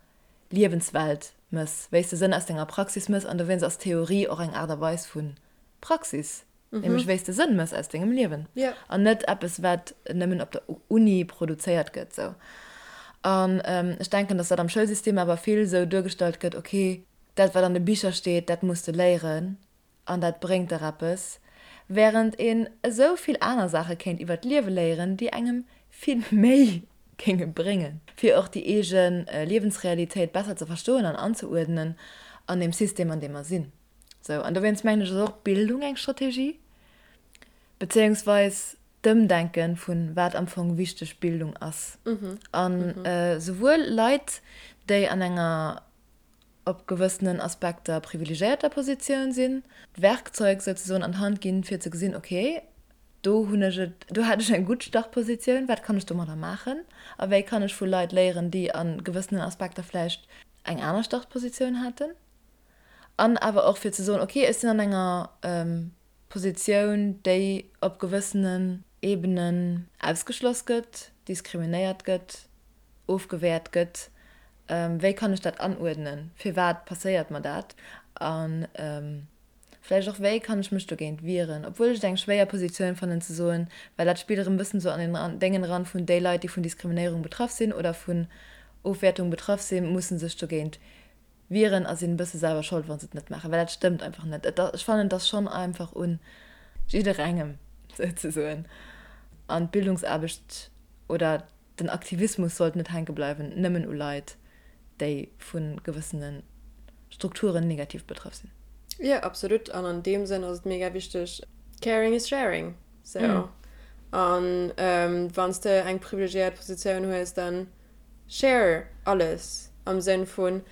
Liewenswelt mëss, wéi s de Sënn aus denger Praxis mëss. An dowéinst ass Theorie och eng Aart a Weis vu Praxis, nämlech wéi s de Sënn mëss aus dengem Liewen an net eppes, wat nëmmen op der Uni produzéiert gëtt. Sou. An ech denken, datt dat am Schoulsystem awer vill sou duergestallt gëtt, okay, Dat wat an de Bicher steet, dat muss de léieren an dat bréngt der eppes, wärend een esou vill aner Saache kéint iwwer d'Liewe léieren, déi engem vill méi géinge bréngen, fir och déi eege Liewensrealitéit besser ze verstoen an anzeuerdnen. An deem System, an deem mer sinn. Sou, an dowéinst mengen ech, ass och Bildung eng Strategie, bezéiungsweis d'Ëmdenke vun wat am Fong wichteg Bildung ass. An souwuel Leit, déi an enger op gewëssenen Aspekter privilegéierter Positioun sinn, d'Werkzeug souzesoen an d'Hand ginn, fir ze gesinn, okay, do hunn ech et, do hat ech eng gutt Startpositioun, wat kann ech domadder maachen a wéi kann ech vu Leit léieren, déi a gewëssenen Aspekter vläicht eng aner Startpositioun haten. An awer och fir ze soen, okay, ech sinn an enger Positioun, déi op gewëssenen Ebenen ausgeschloss gëtt, diskriminéiert gëtt, ofgewäert gëtt, wéi kann ech dat anuerdnen, firwat passéiert mer dat a vläicht och wéi kann ech mech dogéint wieren, obwuel ech et eng schwéier Positioun fannen ze soen, well dat spillt erëm e bëssen esou an den Déngen eran vun déi Leit, déi vun Diskriminéierung betraff sinn oder vun Ofwäertung betraff sinn, musse sech dogéint wieren a sinn e bësse selwer Schold, wa se et net maachen, well dat stëmmt einfach net. Et, ech fannen, et ass schonn einfach un jidderengem souzesoen an d'Bildungsaarbecht oder den Aktivismus sollt net hänke bleiwen nëmmen u Leit, déi vu gewëssene Strukturen negativ betraff sinn. Jo, absolut. An an deem Sënn ass et mega wichteg, caring is sharing. Sou. An wann s de eng privilegiéiert Positioun hues, dann Share alles am Sënn vun,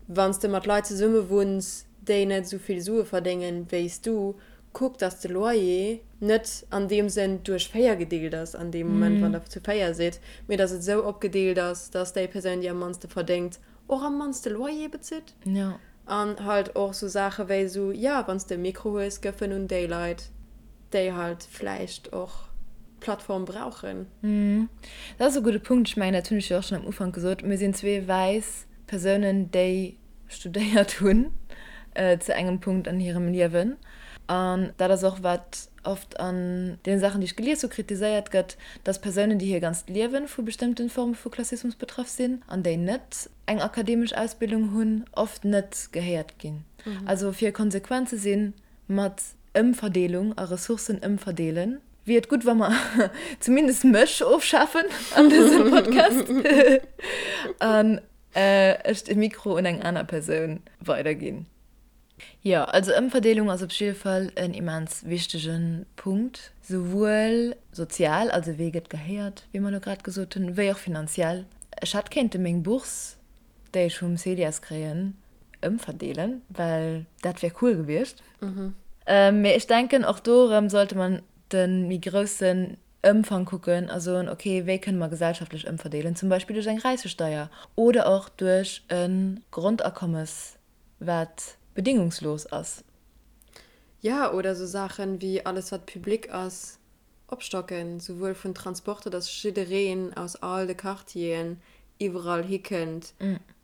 wann s de mat Leit zesumme wunns, déi net esou vill Sue verdéngen wéi s du, kuck dass de Loyer net an deem Sënn duerch 4 gedeelt ass an deem Moment wann der zu 4 sidd, mee dass et esou opgedeelt ass, dass déi Persoun déi am mannste verdéngt och am mannste Loyer bezitt. An halt och sou Saache wéi sou, jo, wann s de e Mikro hues, gëff en un déi Leit, déi halt vläicht och d'Plattform brauchen. Dat ass e gudde Punkt. Ech mengen, dat hunn ech jo och schonn am Ufank gesot, Mir sinn zwee wäiss Persounen, déi studéiert hunn zu engem Punkt an hirem Liewen. An dat ass och, wat oft an deene Saachen, déi ech gelies hu, kritiséiert gëtt, dass Persounen, déi hir ganzt Liewe vu bestëmmte Forme vu Klassismus betraff sinn an déi net eng akademesch Ausbildung hunn, oft net gehéiert ginn. Also fir konsequent ze sinn mat Ëmverdeelung a Ressourcen ëmverdeelen, wier et gutt, wa mer zumindest mech ofschafen an dësem Podcast an ech de Mikro un eng aner Persoun weiderginn. Jo, also Ëmverdeelung ass op jidde Fall en immens wichtege Punkt, souwuel sozial, also wee gëtt gehéiert, wéi mer elo grad gesot hunn, wéi och finanziell. Ech hätt kéinte meng Bourse, déi ech vum CEDIAS kréien, ëmverdeelen, well dat wär cool gewiescht. Mee ech denken, och do erëm sollte mer de méi groussen Ëmfang kucken a soen, ok, wéi kënne mer gesellschaftlech ëmverdeelen, zum Beispill duerch eng Räichesteier oder och duerch e Grondakommes, wat bedingungslos ass. Jo, oder esou Saachen wéi alles wat public ass opstocken, souwuel vun Transporter, dass jiddereen aus all de Quartieren iwwerall hikënnt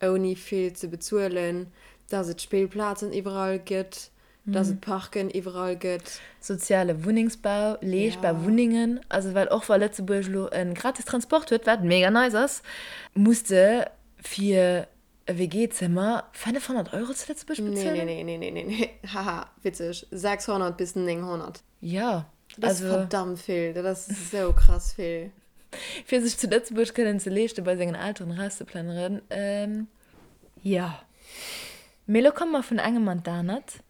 ouni vill ze bezuelen, dass et Spillplazen iwwerall gëtt, dass et Parken iwwerall gëtt. Soziale Wunnengsbau, leeschtbar Wunnengen, also well och wa Lëtzebuerg elo e gratis Transport huet, wat mega nice ass, muss de fir E WG-Zëmmer 500 Euro zu Lëtzebuerg bezuelen? Nee, nee, nee, nee, nee, haha, witzeg, 600 bis 900. Jo, Dat ass verdammt vill, dat ass esou krass vill. Fir sech zu Lëtzebuerg kënnen ze leeschten, bei sengen Elteren erauszeplënneren, jo. Mee elo komme mer vun engem an d'anert.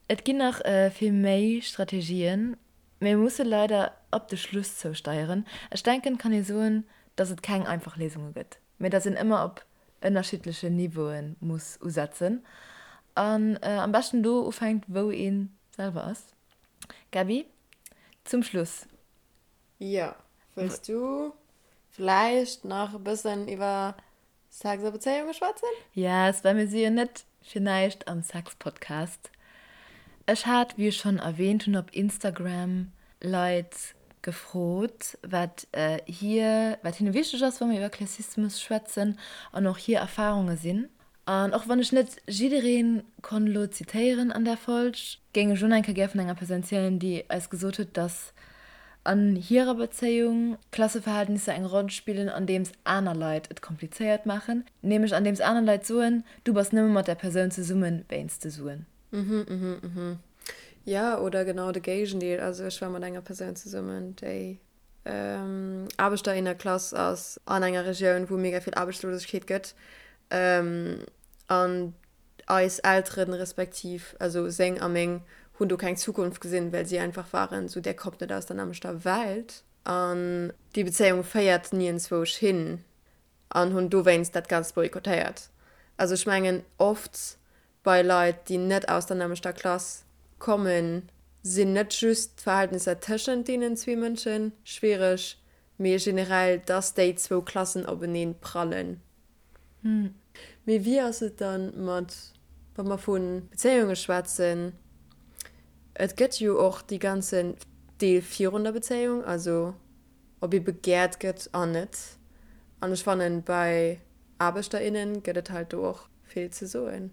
Et ginn nach vill méi Strategien, mee mir musse leider op de Schluss zousteieren. Ech denken, et kann ee soen, dass et keng einfach Léisunge gëtt, mee dass een ëmmer op ënnerschiddlechen Niveaue muss usetzen an am beschten do ufänkt, wou ee selwer ass. Gaby, zum Schluss. Jo, wëlls du vläicht nach e bëssen iwwer Sex a Bezéiunge schwätzen? Yes, well mir si jo net fir näischt am Sex-Podcast. Ech hat, wéi ech schonn erwähnt hunn, op Instagram Leit gefrot, wat hir, wat hinne wichteg ass, wa mir iwwer Klassismus schwätzen an och hir Erfarunge sinn. An och wann ech net jidderee konnt elo zitéieren an där Folg, géing ech elo nach eng Kéier gär vun enger Persoun zielen, déi eis gesot huet, dass an hirer Bezéiung Klasseverhältnisser eng Roll spillen, andeems aner Leit et komplizéiert maachen, nämlech andeems aner Leit soen, du bass nëmme mat där Persoun zesummen wéinst de Suen. Mhm, mhm, mhm. Jo, oder genau de Géigendeel. Also ech war mat enger Persoun zesummen, déi Aarbechterinnenklass ass an enger Regioun, wou mega vill Aarbechtslosegkeet gëtt. An. Eis Elteren, respektiv also seng a meng, hunn do keng Zukunft gesinn, well si einfach waren esou, där kommt net aus der nämmlechter Welt an déi Bezéiung féiert niergendzwousch hin an hunn dowéinst dat Ganzt boykottéiert. Also ech mengen oft bei Leit, déi net aus der nämmlechter Klass kommen, sinn net just d'Verhältnisser tëschent deenen zwee Mënsche schwiereg, mee generell, dass déi zwou Klassen openeen prallen. Mee wéi ass et dann mat, wa mer vu Bezéiunge schwätzen, et gëtt jo och dee ganzen Deel virun der Bezéiung, also ob ee begäert gëtt an net. An ech fannen, bei Aarbechter, innen gëtt et halt do och vill ze soen.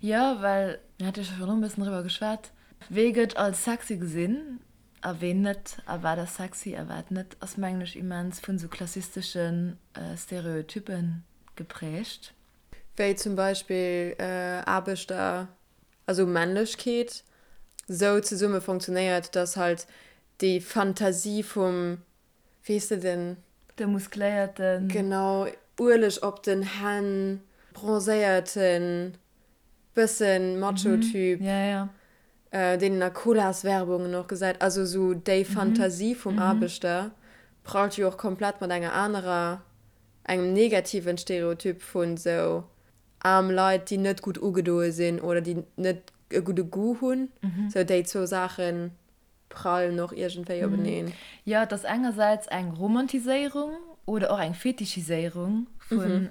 Jo, well mir hate jo scho virdrun e bëssen driwwer geschwat, wee gëtt als sexy gesinn a ween net a wat ass sexy a wat net, ass mengen ech immens vun esou klassistesche Stereotyppe geprägt. Wéi zum Beispill Aarbechter, also Männlechkeet sou zesumme funktionéiert, dass halt déi Fantasie vum, weess de, den. De muskléierten. Genau, Ueleg op den Hänn, bronzéierten, bëssen Macho-Typ, deen een a Colas-Werbungen och gesäit. Also sou déi Fantasie vum Aarbechter prallt jo och komplett mat enger anerer, engem negativen Stereotyp vun sou aarm Leit, déi net gutt ugedoe sinn oder déi net e gudde Goût hunn. Sou déi zwou Saachen prallen och iergendwéi openeen. Jo, et ass engersäits eng Romantiséierung oder och eng Fetichiséierung vun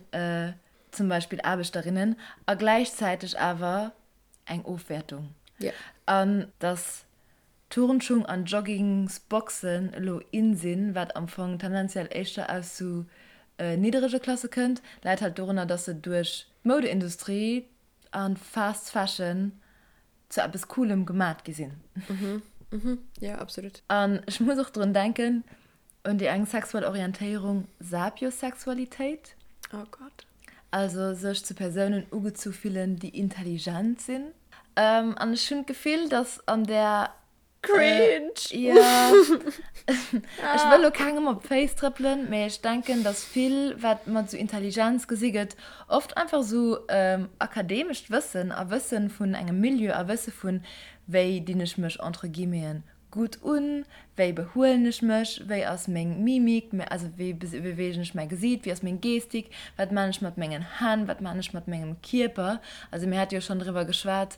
zum Beispill Aarbechterinnen a gläichzäiteg awer eng Ofwäertung. An dass Turnschung an Joggingsboxen elo in sinn, wat am Fong tendenziell éischter aus sou nidderege Klasse kënnt, läit halt dorunner, dass se duerch d'Moudeindustrie an Fast Fashion zu eppes Coolem gemat gi sinn. Jo, absolut. An ech muss och drun denken un déi eng sexuell Orientéierung, Sapiosexualitéit. Oh Gott. Also sech zu Persounen ugezu fillen, déi intelligent sinn. An ech hunn d'Gefill, dass an där. Cringe! Jo. Ech wëll lo kengem op d'Féiss trëppelen, mee ech denken, dass vill, wat mat esou Intelligenz gesi gëtt, oft einfach esou akademescht Wëssen a Wësse vun engem Milieu a Wësse vun, wéi dinn ech mech entre guillemeten gutt un, wéi behuelen ech mech, wéi ass meng Mimik, also wéi beweegen ech mäi Gesiit, wéi ass meng Gestik, wat maan ech mat mengen Hänn, wat maan ech mat mengem Kierper. Also mir hate jo schonn driwwer geschwat,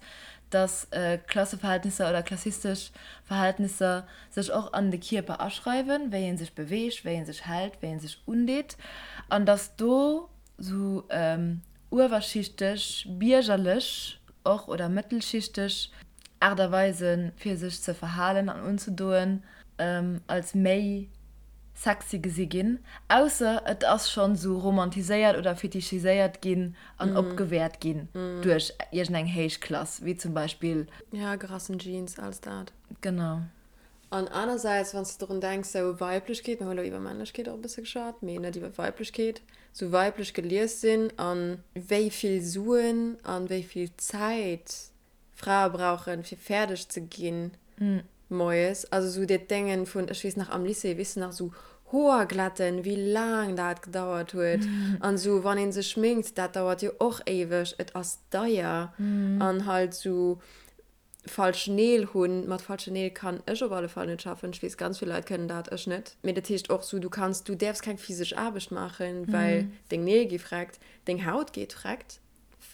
dass Klasseverhältnisser oder klassistesch Verhältnisser sech och an de Kierper aschreiwen, wéi ee sech beweegt, wéi ee sech hält, wéi ee sech undeet an dass do sou uewerschichteg, biergerlech och oder mëttelschichteg Aart a Weisen, fir sech ze verhalen an unzedoen, als méi sexy gesi ginn, ausser et ass schonn esou romantiséiert oder fetichiséiert ginn an opgewäert ginn duerch iergendeng héich Klass, wéi zum Beispill. Ja, gerassen Jeans, alles dat. Genau. An anersäits, wann s de drun denks, sou Weiblechkeet, mir hu lo iwwer Männlechkeet och e bësse geschwat, mee net iwwer Weiblechkeet, sou weiblech gelies sinn a wéi vill Suen a wéi vill Zäit Frae brauchen, fir fäerdeg ze ginn moies. Also sou dat Déngen vun, ech weess nach am Lycée, weess de nach, sou Hoer glätten, wéi laang dat gedauert huet. An sou wann ee sech schminkt, dat dauert jo och éiweg, et ass deier. An halt sou falsch Neel hunn, mat falschen Neel kann ech op alle Fall net schaffen. Ech weess, ganz vill Leit kënnen dat, ech net. Mee dat heescht och sou, du kanns, du däerfs keng physesch Aarbecht maachen, well deng Neel gi vreckt, deng Haut geet vreckt.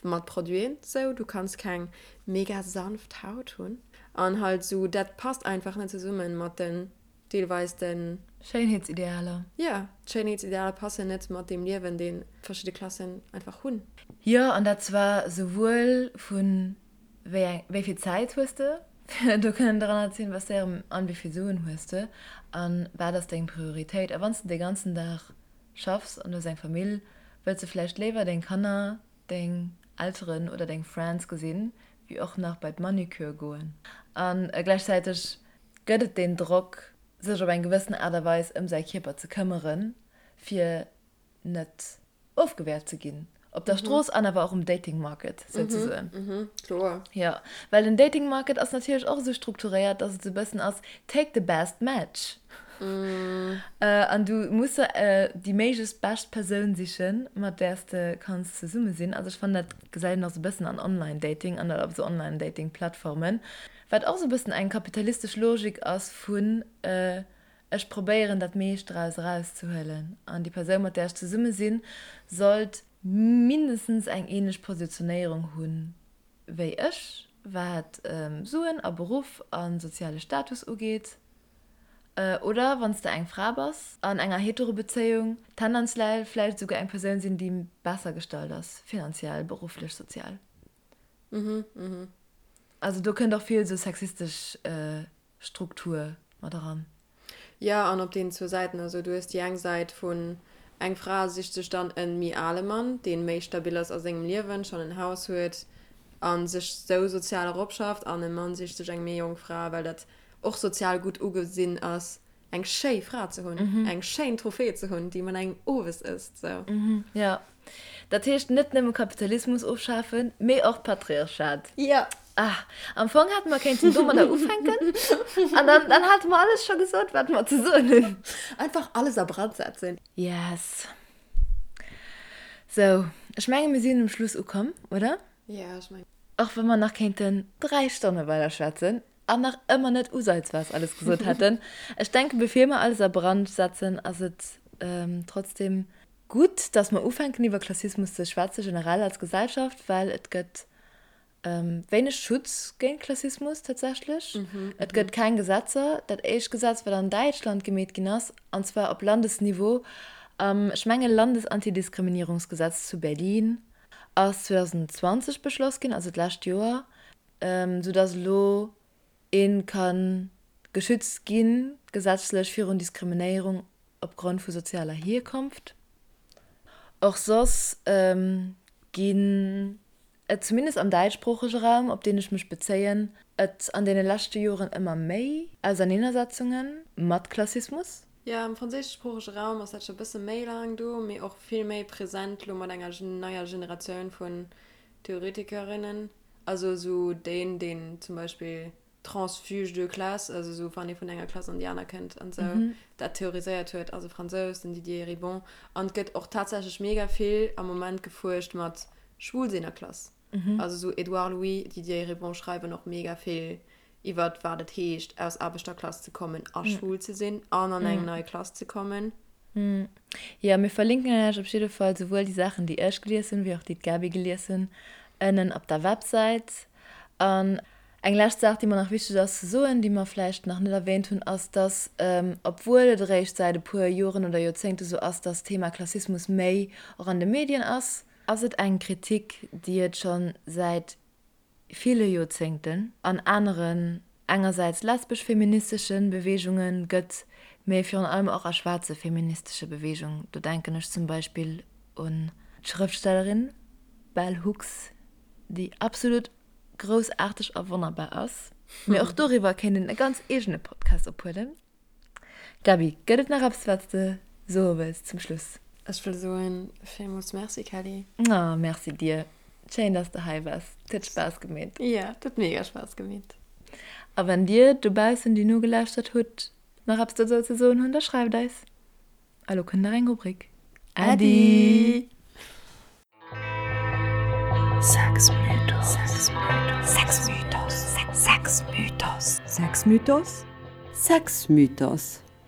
Mat Produiten sou, du kanns keng mega sanft Haut hunn an halt sou, dat passt einfach net zesummen mat den deelweis den. Schéinheetsidealer. Jo, d'Schéinheetsidealer passen net mat deem Liewen deen verschidde Klassen einfach hunn. Jo, an dat zwar souwuel vun wéi eng, wéi vill Zäit hues de fir do kënnen dran ze investéieren an wéi vill Suen hues de an wat ass deng Prioritéit. A wann s de de ganzen Dag schaffs an du hues eng Famill, wëlls de vläicht léiwer deng Kanner, deng Elteren oder deng Friends gesinn, wéi och nach bei d'Manucure goen. A gläichzäiteg gëtt et deen Drock, sech op eng gewëssen Aart a Weis ëm säi Kierper ze këmmeren, fir net ofgewäert ze ginn. Op der Strooss an awer och um Dating Market souzesoen. Kloer. Jo, well den Dating Market ass natierlech och esou strukturéiert, dass et esou e bëssen ass, take the best match. An du muss der déi méiglechst bescht Persoun sichen, mat där s de kanns zesumme sinn. Also ech fannen, dat gesäit een och sou e bëssen an Online-Dating an op esou Online-Dating-Plattformen, wat och sou e bëssen eng kapitalistesch Logik ass vun ech probéieren dat meescht draus erauszehuelen an déi Persoun, mat där ech zesumme sinn, sollt mindestens eng ähnlech Positionéierung hunn wéi ech, wat Suen a Beruff a soziale Status ugeet. Oder wann s de eng Fra bass an enger Hetero-Bezéiung, tendenziell vläicht esouguer eng Persoun sinn, déi besser gestallt ass, finanziell, berufflech, sozial. Also do kënnt och vill esou sexistesch Struktur mat eran. Jo, an op deenen zwou Säiten. Also du hues déi eng Säit vun eng Fra sicht sech dann e méi ale Mann, dee méi stabil ass a sengem Liewen, schonn en Haus huet a sech sou sozial eropschafft, an e Mann sicht sech eng méi jonk Fra, well dat och sozial gutt ugesinn ass, eng schéi Fra ze hunn, eng schéin Trophée ze hunn, déi mat engem owes ësst. Sou. Jo. Dat heescht net nëmme Kapitalismus ofschafen, mee och d'Patriarchat. Jo. Ah, am Fong hätte mer kéinten domadder ufänken an dann, dann hate mer alles scho gesot, wat mer ze soen hunn. Einfach alles a Brand setzen. Yes. Sou, ech menge mir sinn um Schluss ukomm, oder? Jo, ech mengen. Och wa mer nach kéinten 3 Stonne weider schwätzen an nach ëmmer net usaizweis alles gesot hätten. Ech denken, bevir mer alles a Brand setzen, ass et trotzdem gutt, dass mer ufänken iwwer Klassismus ze schwätzen, generell als Gesellschaft, well et gëtt wéineg Schutz géint Klassismus tatsächlech. Et gëtt keng Gesetzer. Dat éischt Gesetz, wat an Däitschland gemeet ginn ass, an zwar op Landesniveau, am, ech menge Landesantidiskriminierungsgesetz zu Berlin, ass 2020 beschloss ginn, also d'lescht Joer, soudass elo ee ka geschützt gi gesetzlech virun Diskriminéierung opgrond vu sozialer Hierkonft. Och soss ginn et, zumindest am däitschsproochege Raum, op deen ech mech bezéien, et an deene leschte Joren ëmmer méi Auserneenersetzunge mat Klassismus. Jo, am franséischsproochege Raum ass dat scho bësse méi laang do, mee och vill méi present lo mat enger neier Generatioun vun Theoretikerinnen. Also esou deen, deen zum Beispill Transfuge de classe, also esou wann ee vun enger Klass an déi aner kënnt an esou, dat theoriséiert huet, ass e Fransous, den Didier Eribon. An et gëtt och tatsächlech mega vill am Moment gefuerscht mat Schwulsinn a Klass. Also esou Édouard Louis, Didier Eribon schreiwen och mega vill iwwert wat et heescht aus Aarbechterklass ze kommen a schwul ze sinn an an eng nei Klass ze kommen. Jo, mir verlinken Iech op jidde Fall souwuel déi Saachen, déi ech gelies hunn, wéi och déi d'Gaby gelies hunn, ënnen op der Websäit. An eng lescht Saach, déi mer nach wichteg ass ze soen, déi mer vläicht nach net erwähnt hunn, ass, dass, obwuel et eréischt säit e puer Joren oder Joerzéngte sou ass, dass d'Thema Klassismus méi och an de Medien ass, ass et eng Kritik, déi et scho säit ville Joerzéngten an aneren, engersäits lesbesch-feministesche Beweegunge gëtt, mee virun allem och a schwaarze feministesche Beweegung. Do denken ech zum Beispill un d'Schrëftstellerin Bell Hooks, déi absolut groussaarteg a wonnerbar ass. Mee och doriwwer kéint een e ganz eegene Podcast ophuelen. Gaby, gëtt et nach eppes, wat s de soe wëlls zum Schluss? Ech wëll soen, villmools Merci, Kelly. Oh, Merci dir. Schéin, dass de hei bass. Et huet Spaass gemeet. Jo, et huet mega Spaass gemeet. A wann dir dobaussen, déi nogelauschtert hutt, nach eppes dozou ze soen hunn, da schreift eis. A lo kënnt nach eng Rubrik. Äddi! Sexmythos.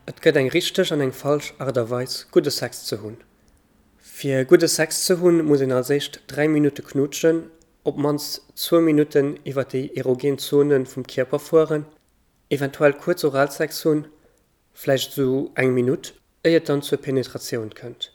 Et gëtt eng richteg an eng falsch Art a Weis gudde Sex ze hunn. Fir gudde Sex ze hunn, muss een als éischt 3 Minutte knuutschen, op mannst zwou Minutten iwwer déi erogen Zone vum Kierper fueren, eventuell kuerz Oralsex hunn, vläicht esou eng Minutt, éier et dann zur Penetratioun kënnt.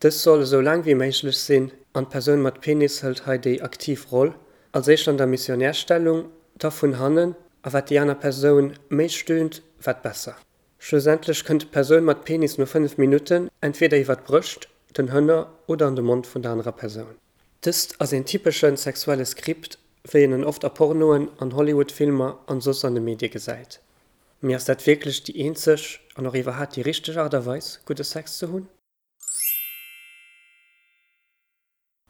Dës soll esou laang wéi méiglech sinn an d'Persoun mat Penis hëlt hei déi aktiv Roll, als éischt an der Missionärstellung, da vun hannen, a wat déi aner Persoun méi stöhnt, wat besser. Schlussendlech kënnt d'Persoun mat Penis no 5 Minutten entweder iwwer d'Brëscht, den Hënner oder an de Mond vun der anerer Persoun. Dëst ass een typesche sexuelle Skript, wéi een en oft a Pornoen, an Hollywood-Filmer an soss an de Medie gesäit. Mee ass dat wierklech déi eenzeg an och iwwerhaat déi richteg Art a Weis, gudde Sex ze hunn?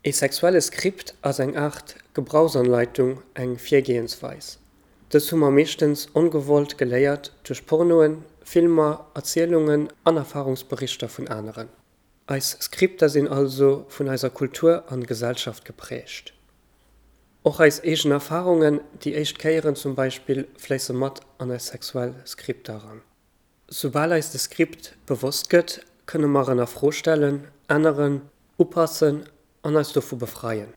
Ee sexuelle Skript ass eng Aart Gebrauchsanleitung, eng Virgehensweis. Dës hu mer meeschtens ongewollt geléiert duerch Pornoen, Filmer, Erzielungen an Erfarungsberichter vun aneren. Eis Skripter sinn also vun eiser Kultur an Gesellschaft geprägt. Och eis eegen Erfarungen, déi éischt Kéieren zum Beispill, fléisse mat an eis sexuell Skripter eran. Soubal eis de Skript bewosst gëtt, kënne mer en a Fro stellen, änneren, upassen an eis dovu befreien.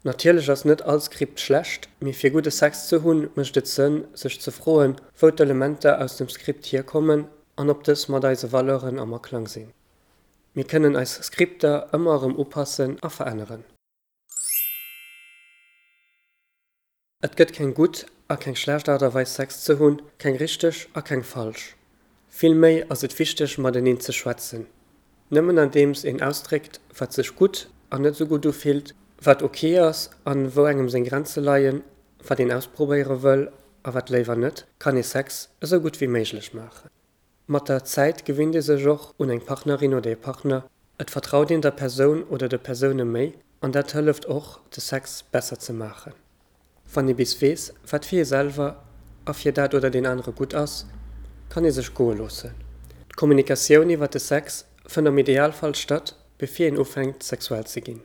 Natierlech ass net all Skript schlecht, mee fir gudde Sex ze hunn, mécht et Sënn, sech ze froen, wou d'Elementer aus dem Skript hierkommen an ob dës mat eise Valeuren am Aklang sinn. Mir kënnen eis Skripter ëmmer erëm upassen a veränneren. Et gëtt keng gutt a keng schlecht Aart a Weis Sex ze hunn, keng richteg a keng falsch. Vill méi ass et wichteg mateneen ze schwätzen. Nëmmen andeems een ausdréckt wat sech gutt an net sou gutt ufillt, wat ok ass an wou engem seng Grenze leien, wat een ausprobéiere wëll a wat léiwer net, kann ee Sex esou gutt wéi méiglech maachen. Mat der Zäit gewinnt ee sech och un eng Partnerin oder ee Partner, et vertraut een der Persoun oder de Persoune méi an dat hëlleft och, de Sex besser ze maachen. Wann ee bis weess, wat fir ee selwer a fir dat oder deen anere gutt ass, kann ee sech goe loossen. D'Kommunikatioun iwwer de Sex fënnt am Idealfall statt, bevir een ufänkt sexuell ze ginn.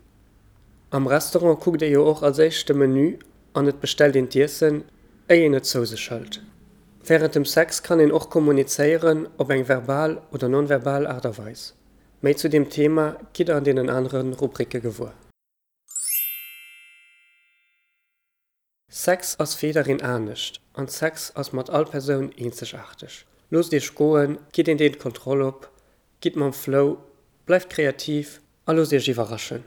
Am Restaurant kuckt ee jo och als éischt de Menü an et bestellt een d'Iessen, éi een et zou sech hëlt. Wärend dem Sex kann een och kommunizéieren, op eng verbal oder non-verbal Aart a Weis. Méi zu deem Thema gitt der an deenen anere Rubricke gewuer. Sex ass fir jiddereen anescht an Sex ass mat all Persoun eenzegaarteg. Loosst iech goen, gitt een Deel d'Kontroll op, gitt mam Flow, bleift kreativ a loosst iech iwwerraschen.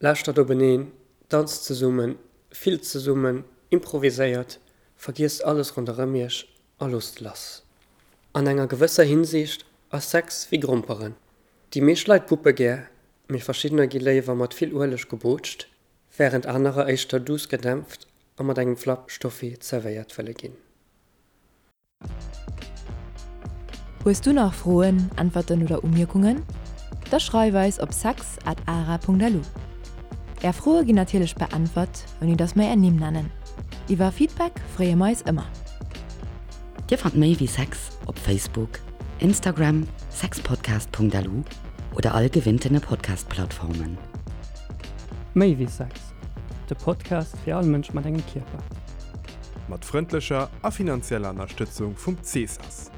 Lauschtert openeen, danzt zesummen, fillt zesummen, improviséiert, vergiesst alles ronderëm iech a loosst lass. An enger gewësser Hinsicht ass Sex wéi Gromperen. Déi meescht Leit puppe gär, mee verschiddener gi léiwer mat vill Ueleg gebootscht, wärend anerer éischter duuss gedämpft a mat engem Flapp Stoffi zerwéiert wëlle ginn. Hues du nach Froen, Äntwerten oder Umierkungen? Da schreif eis op sex at ara.lu. Är Froe ginn natierlech beäntwert, ouni dass mer är Nimm nennen. Iwwer Feedback freeë mer eis ëmmer. Dir fannt méi wéi Sex op Facebook, Instagram, sexpodcast.lu oder all gewinntene Podcast-Plattformen. Méi wéi Sex, de Podcast fir all Mënsch mat engem Kierper. Mat frëndlecher a finanzieller Ënnerstëtzung vum CESAS,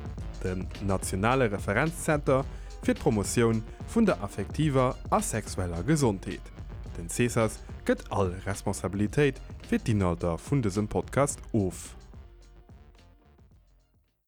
dem nationale Referenzzenter fir d'Promotioun vun der affektiver a sexueller Gesondheet. Den CESAS gëtt all Responsabilitéit fir d'Inhalter vun dësem Podcast of.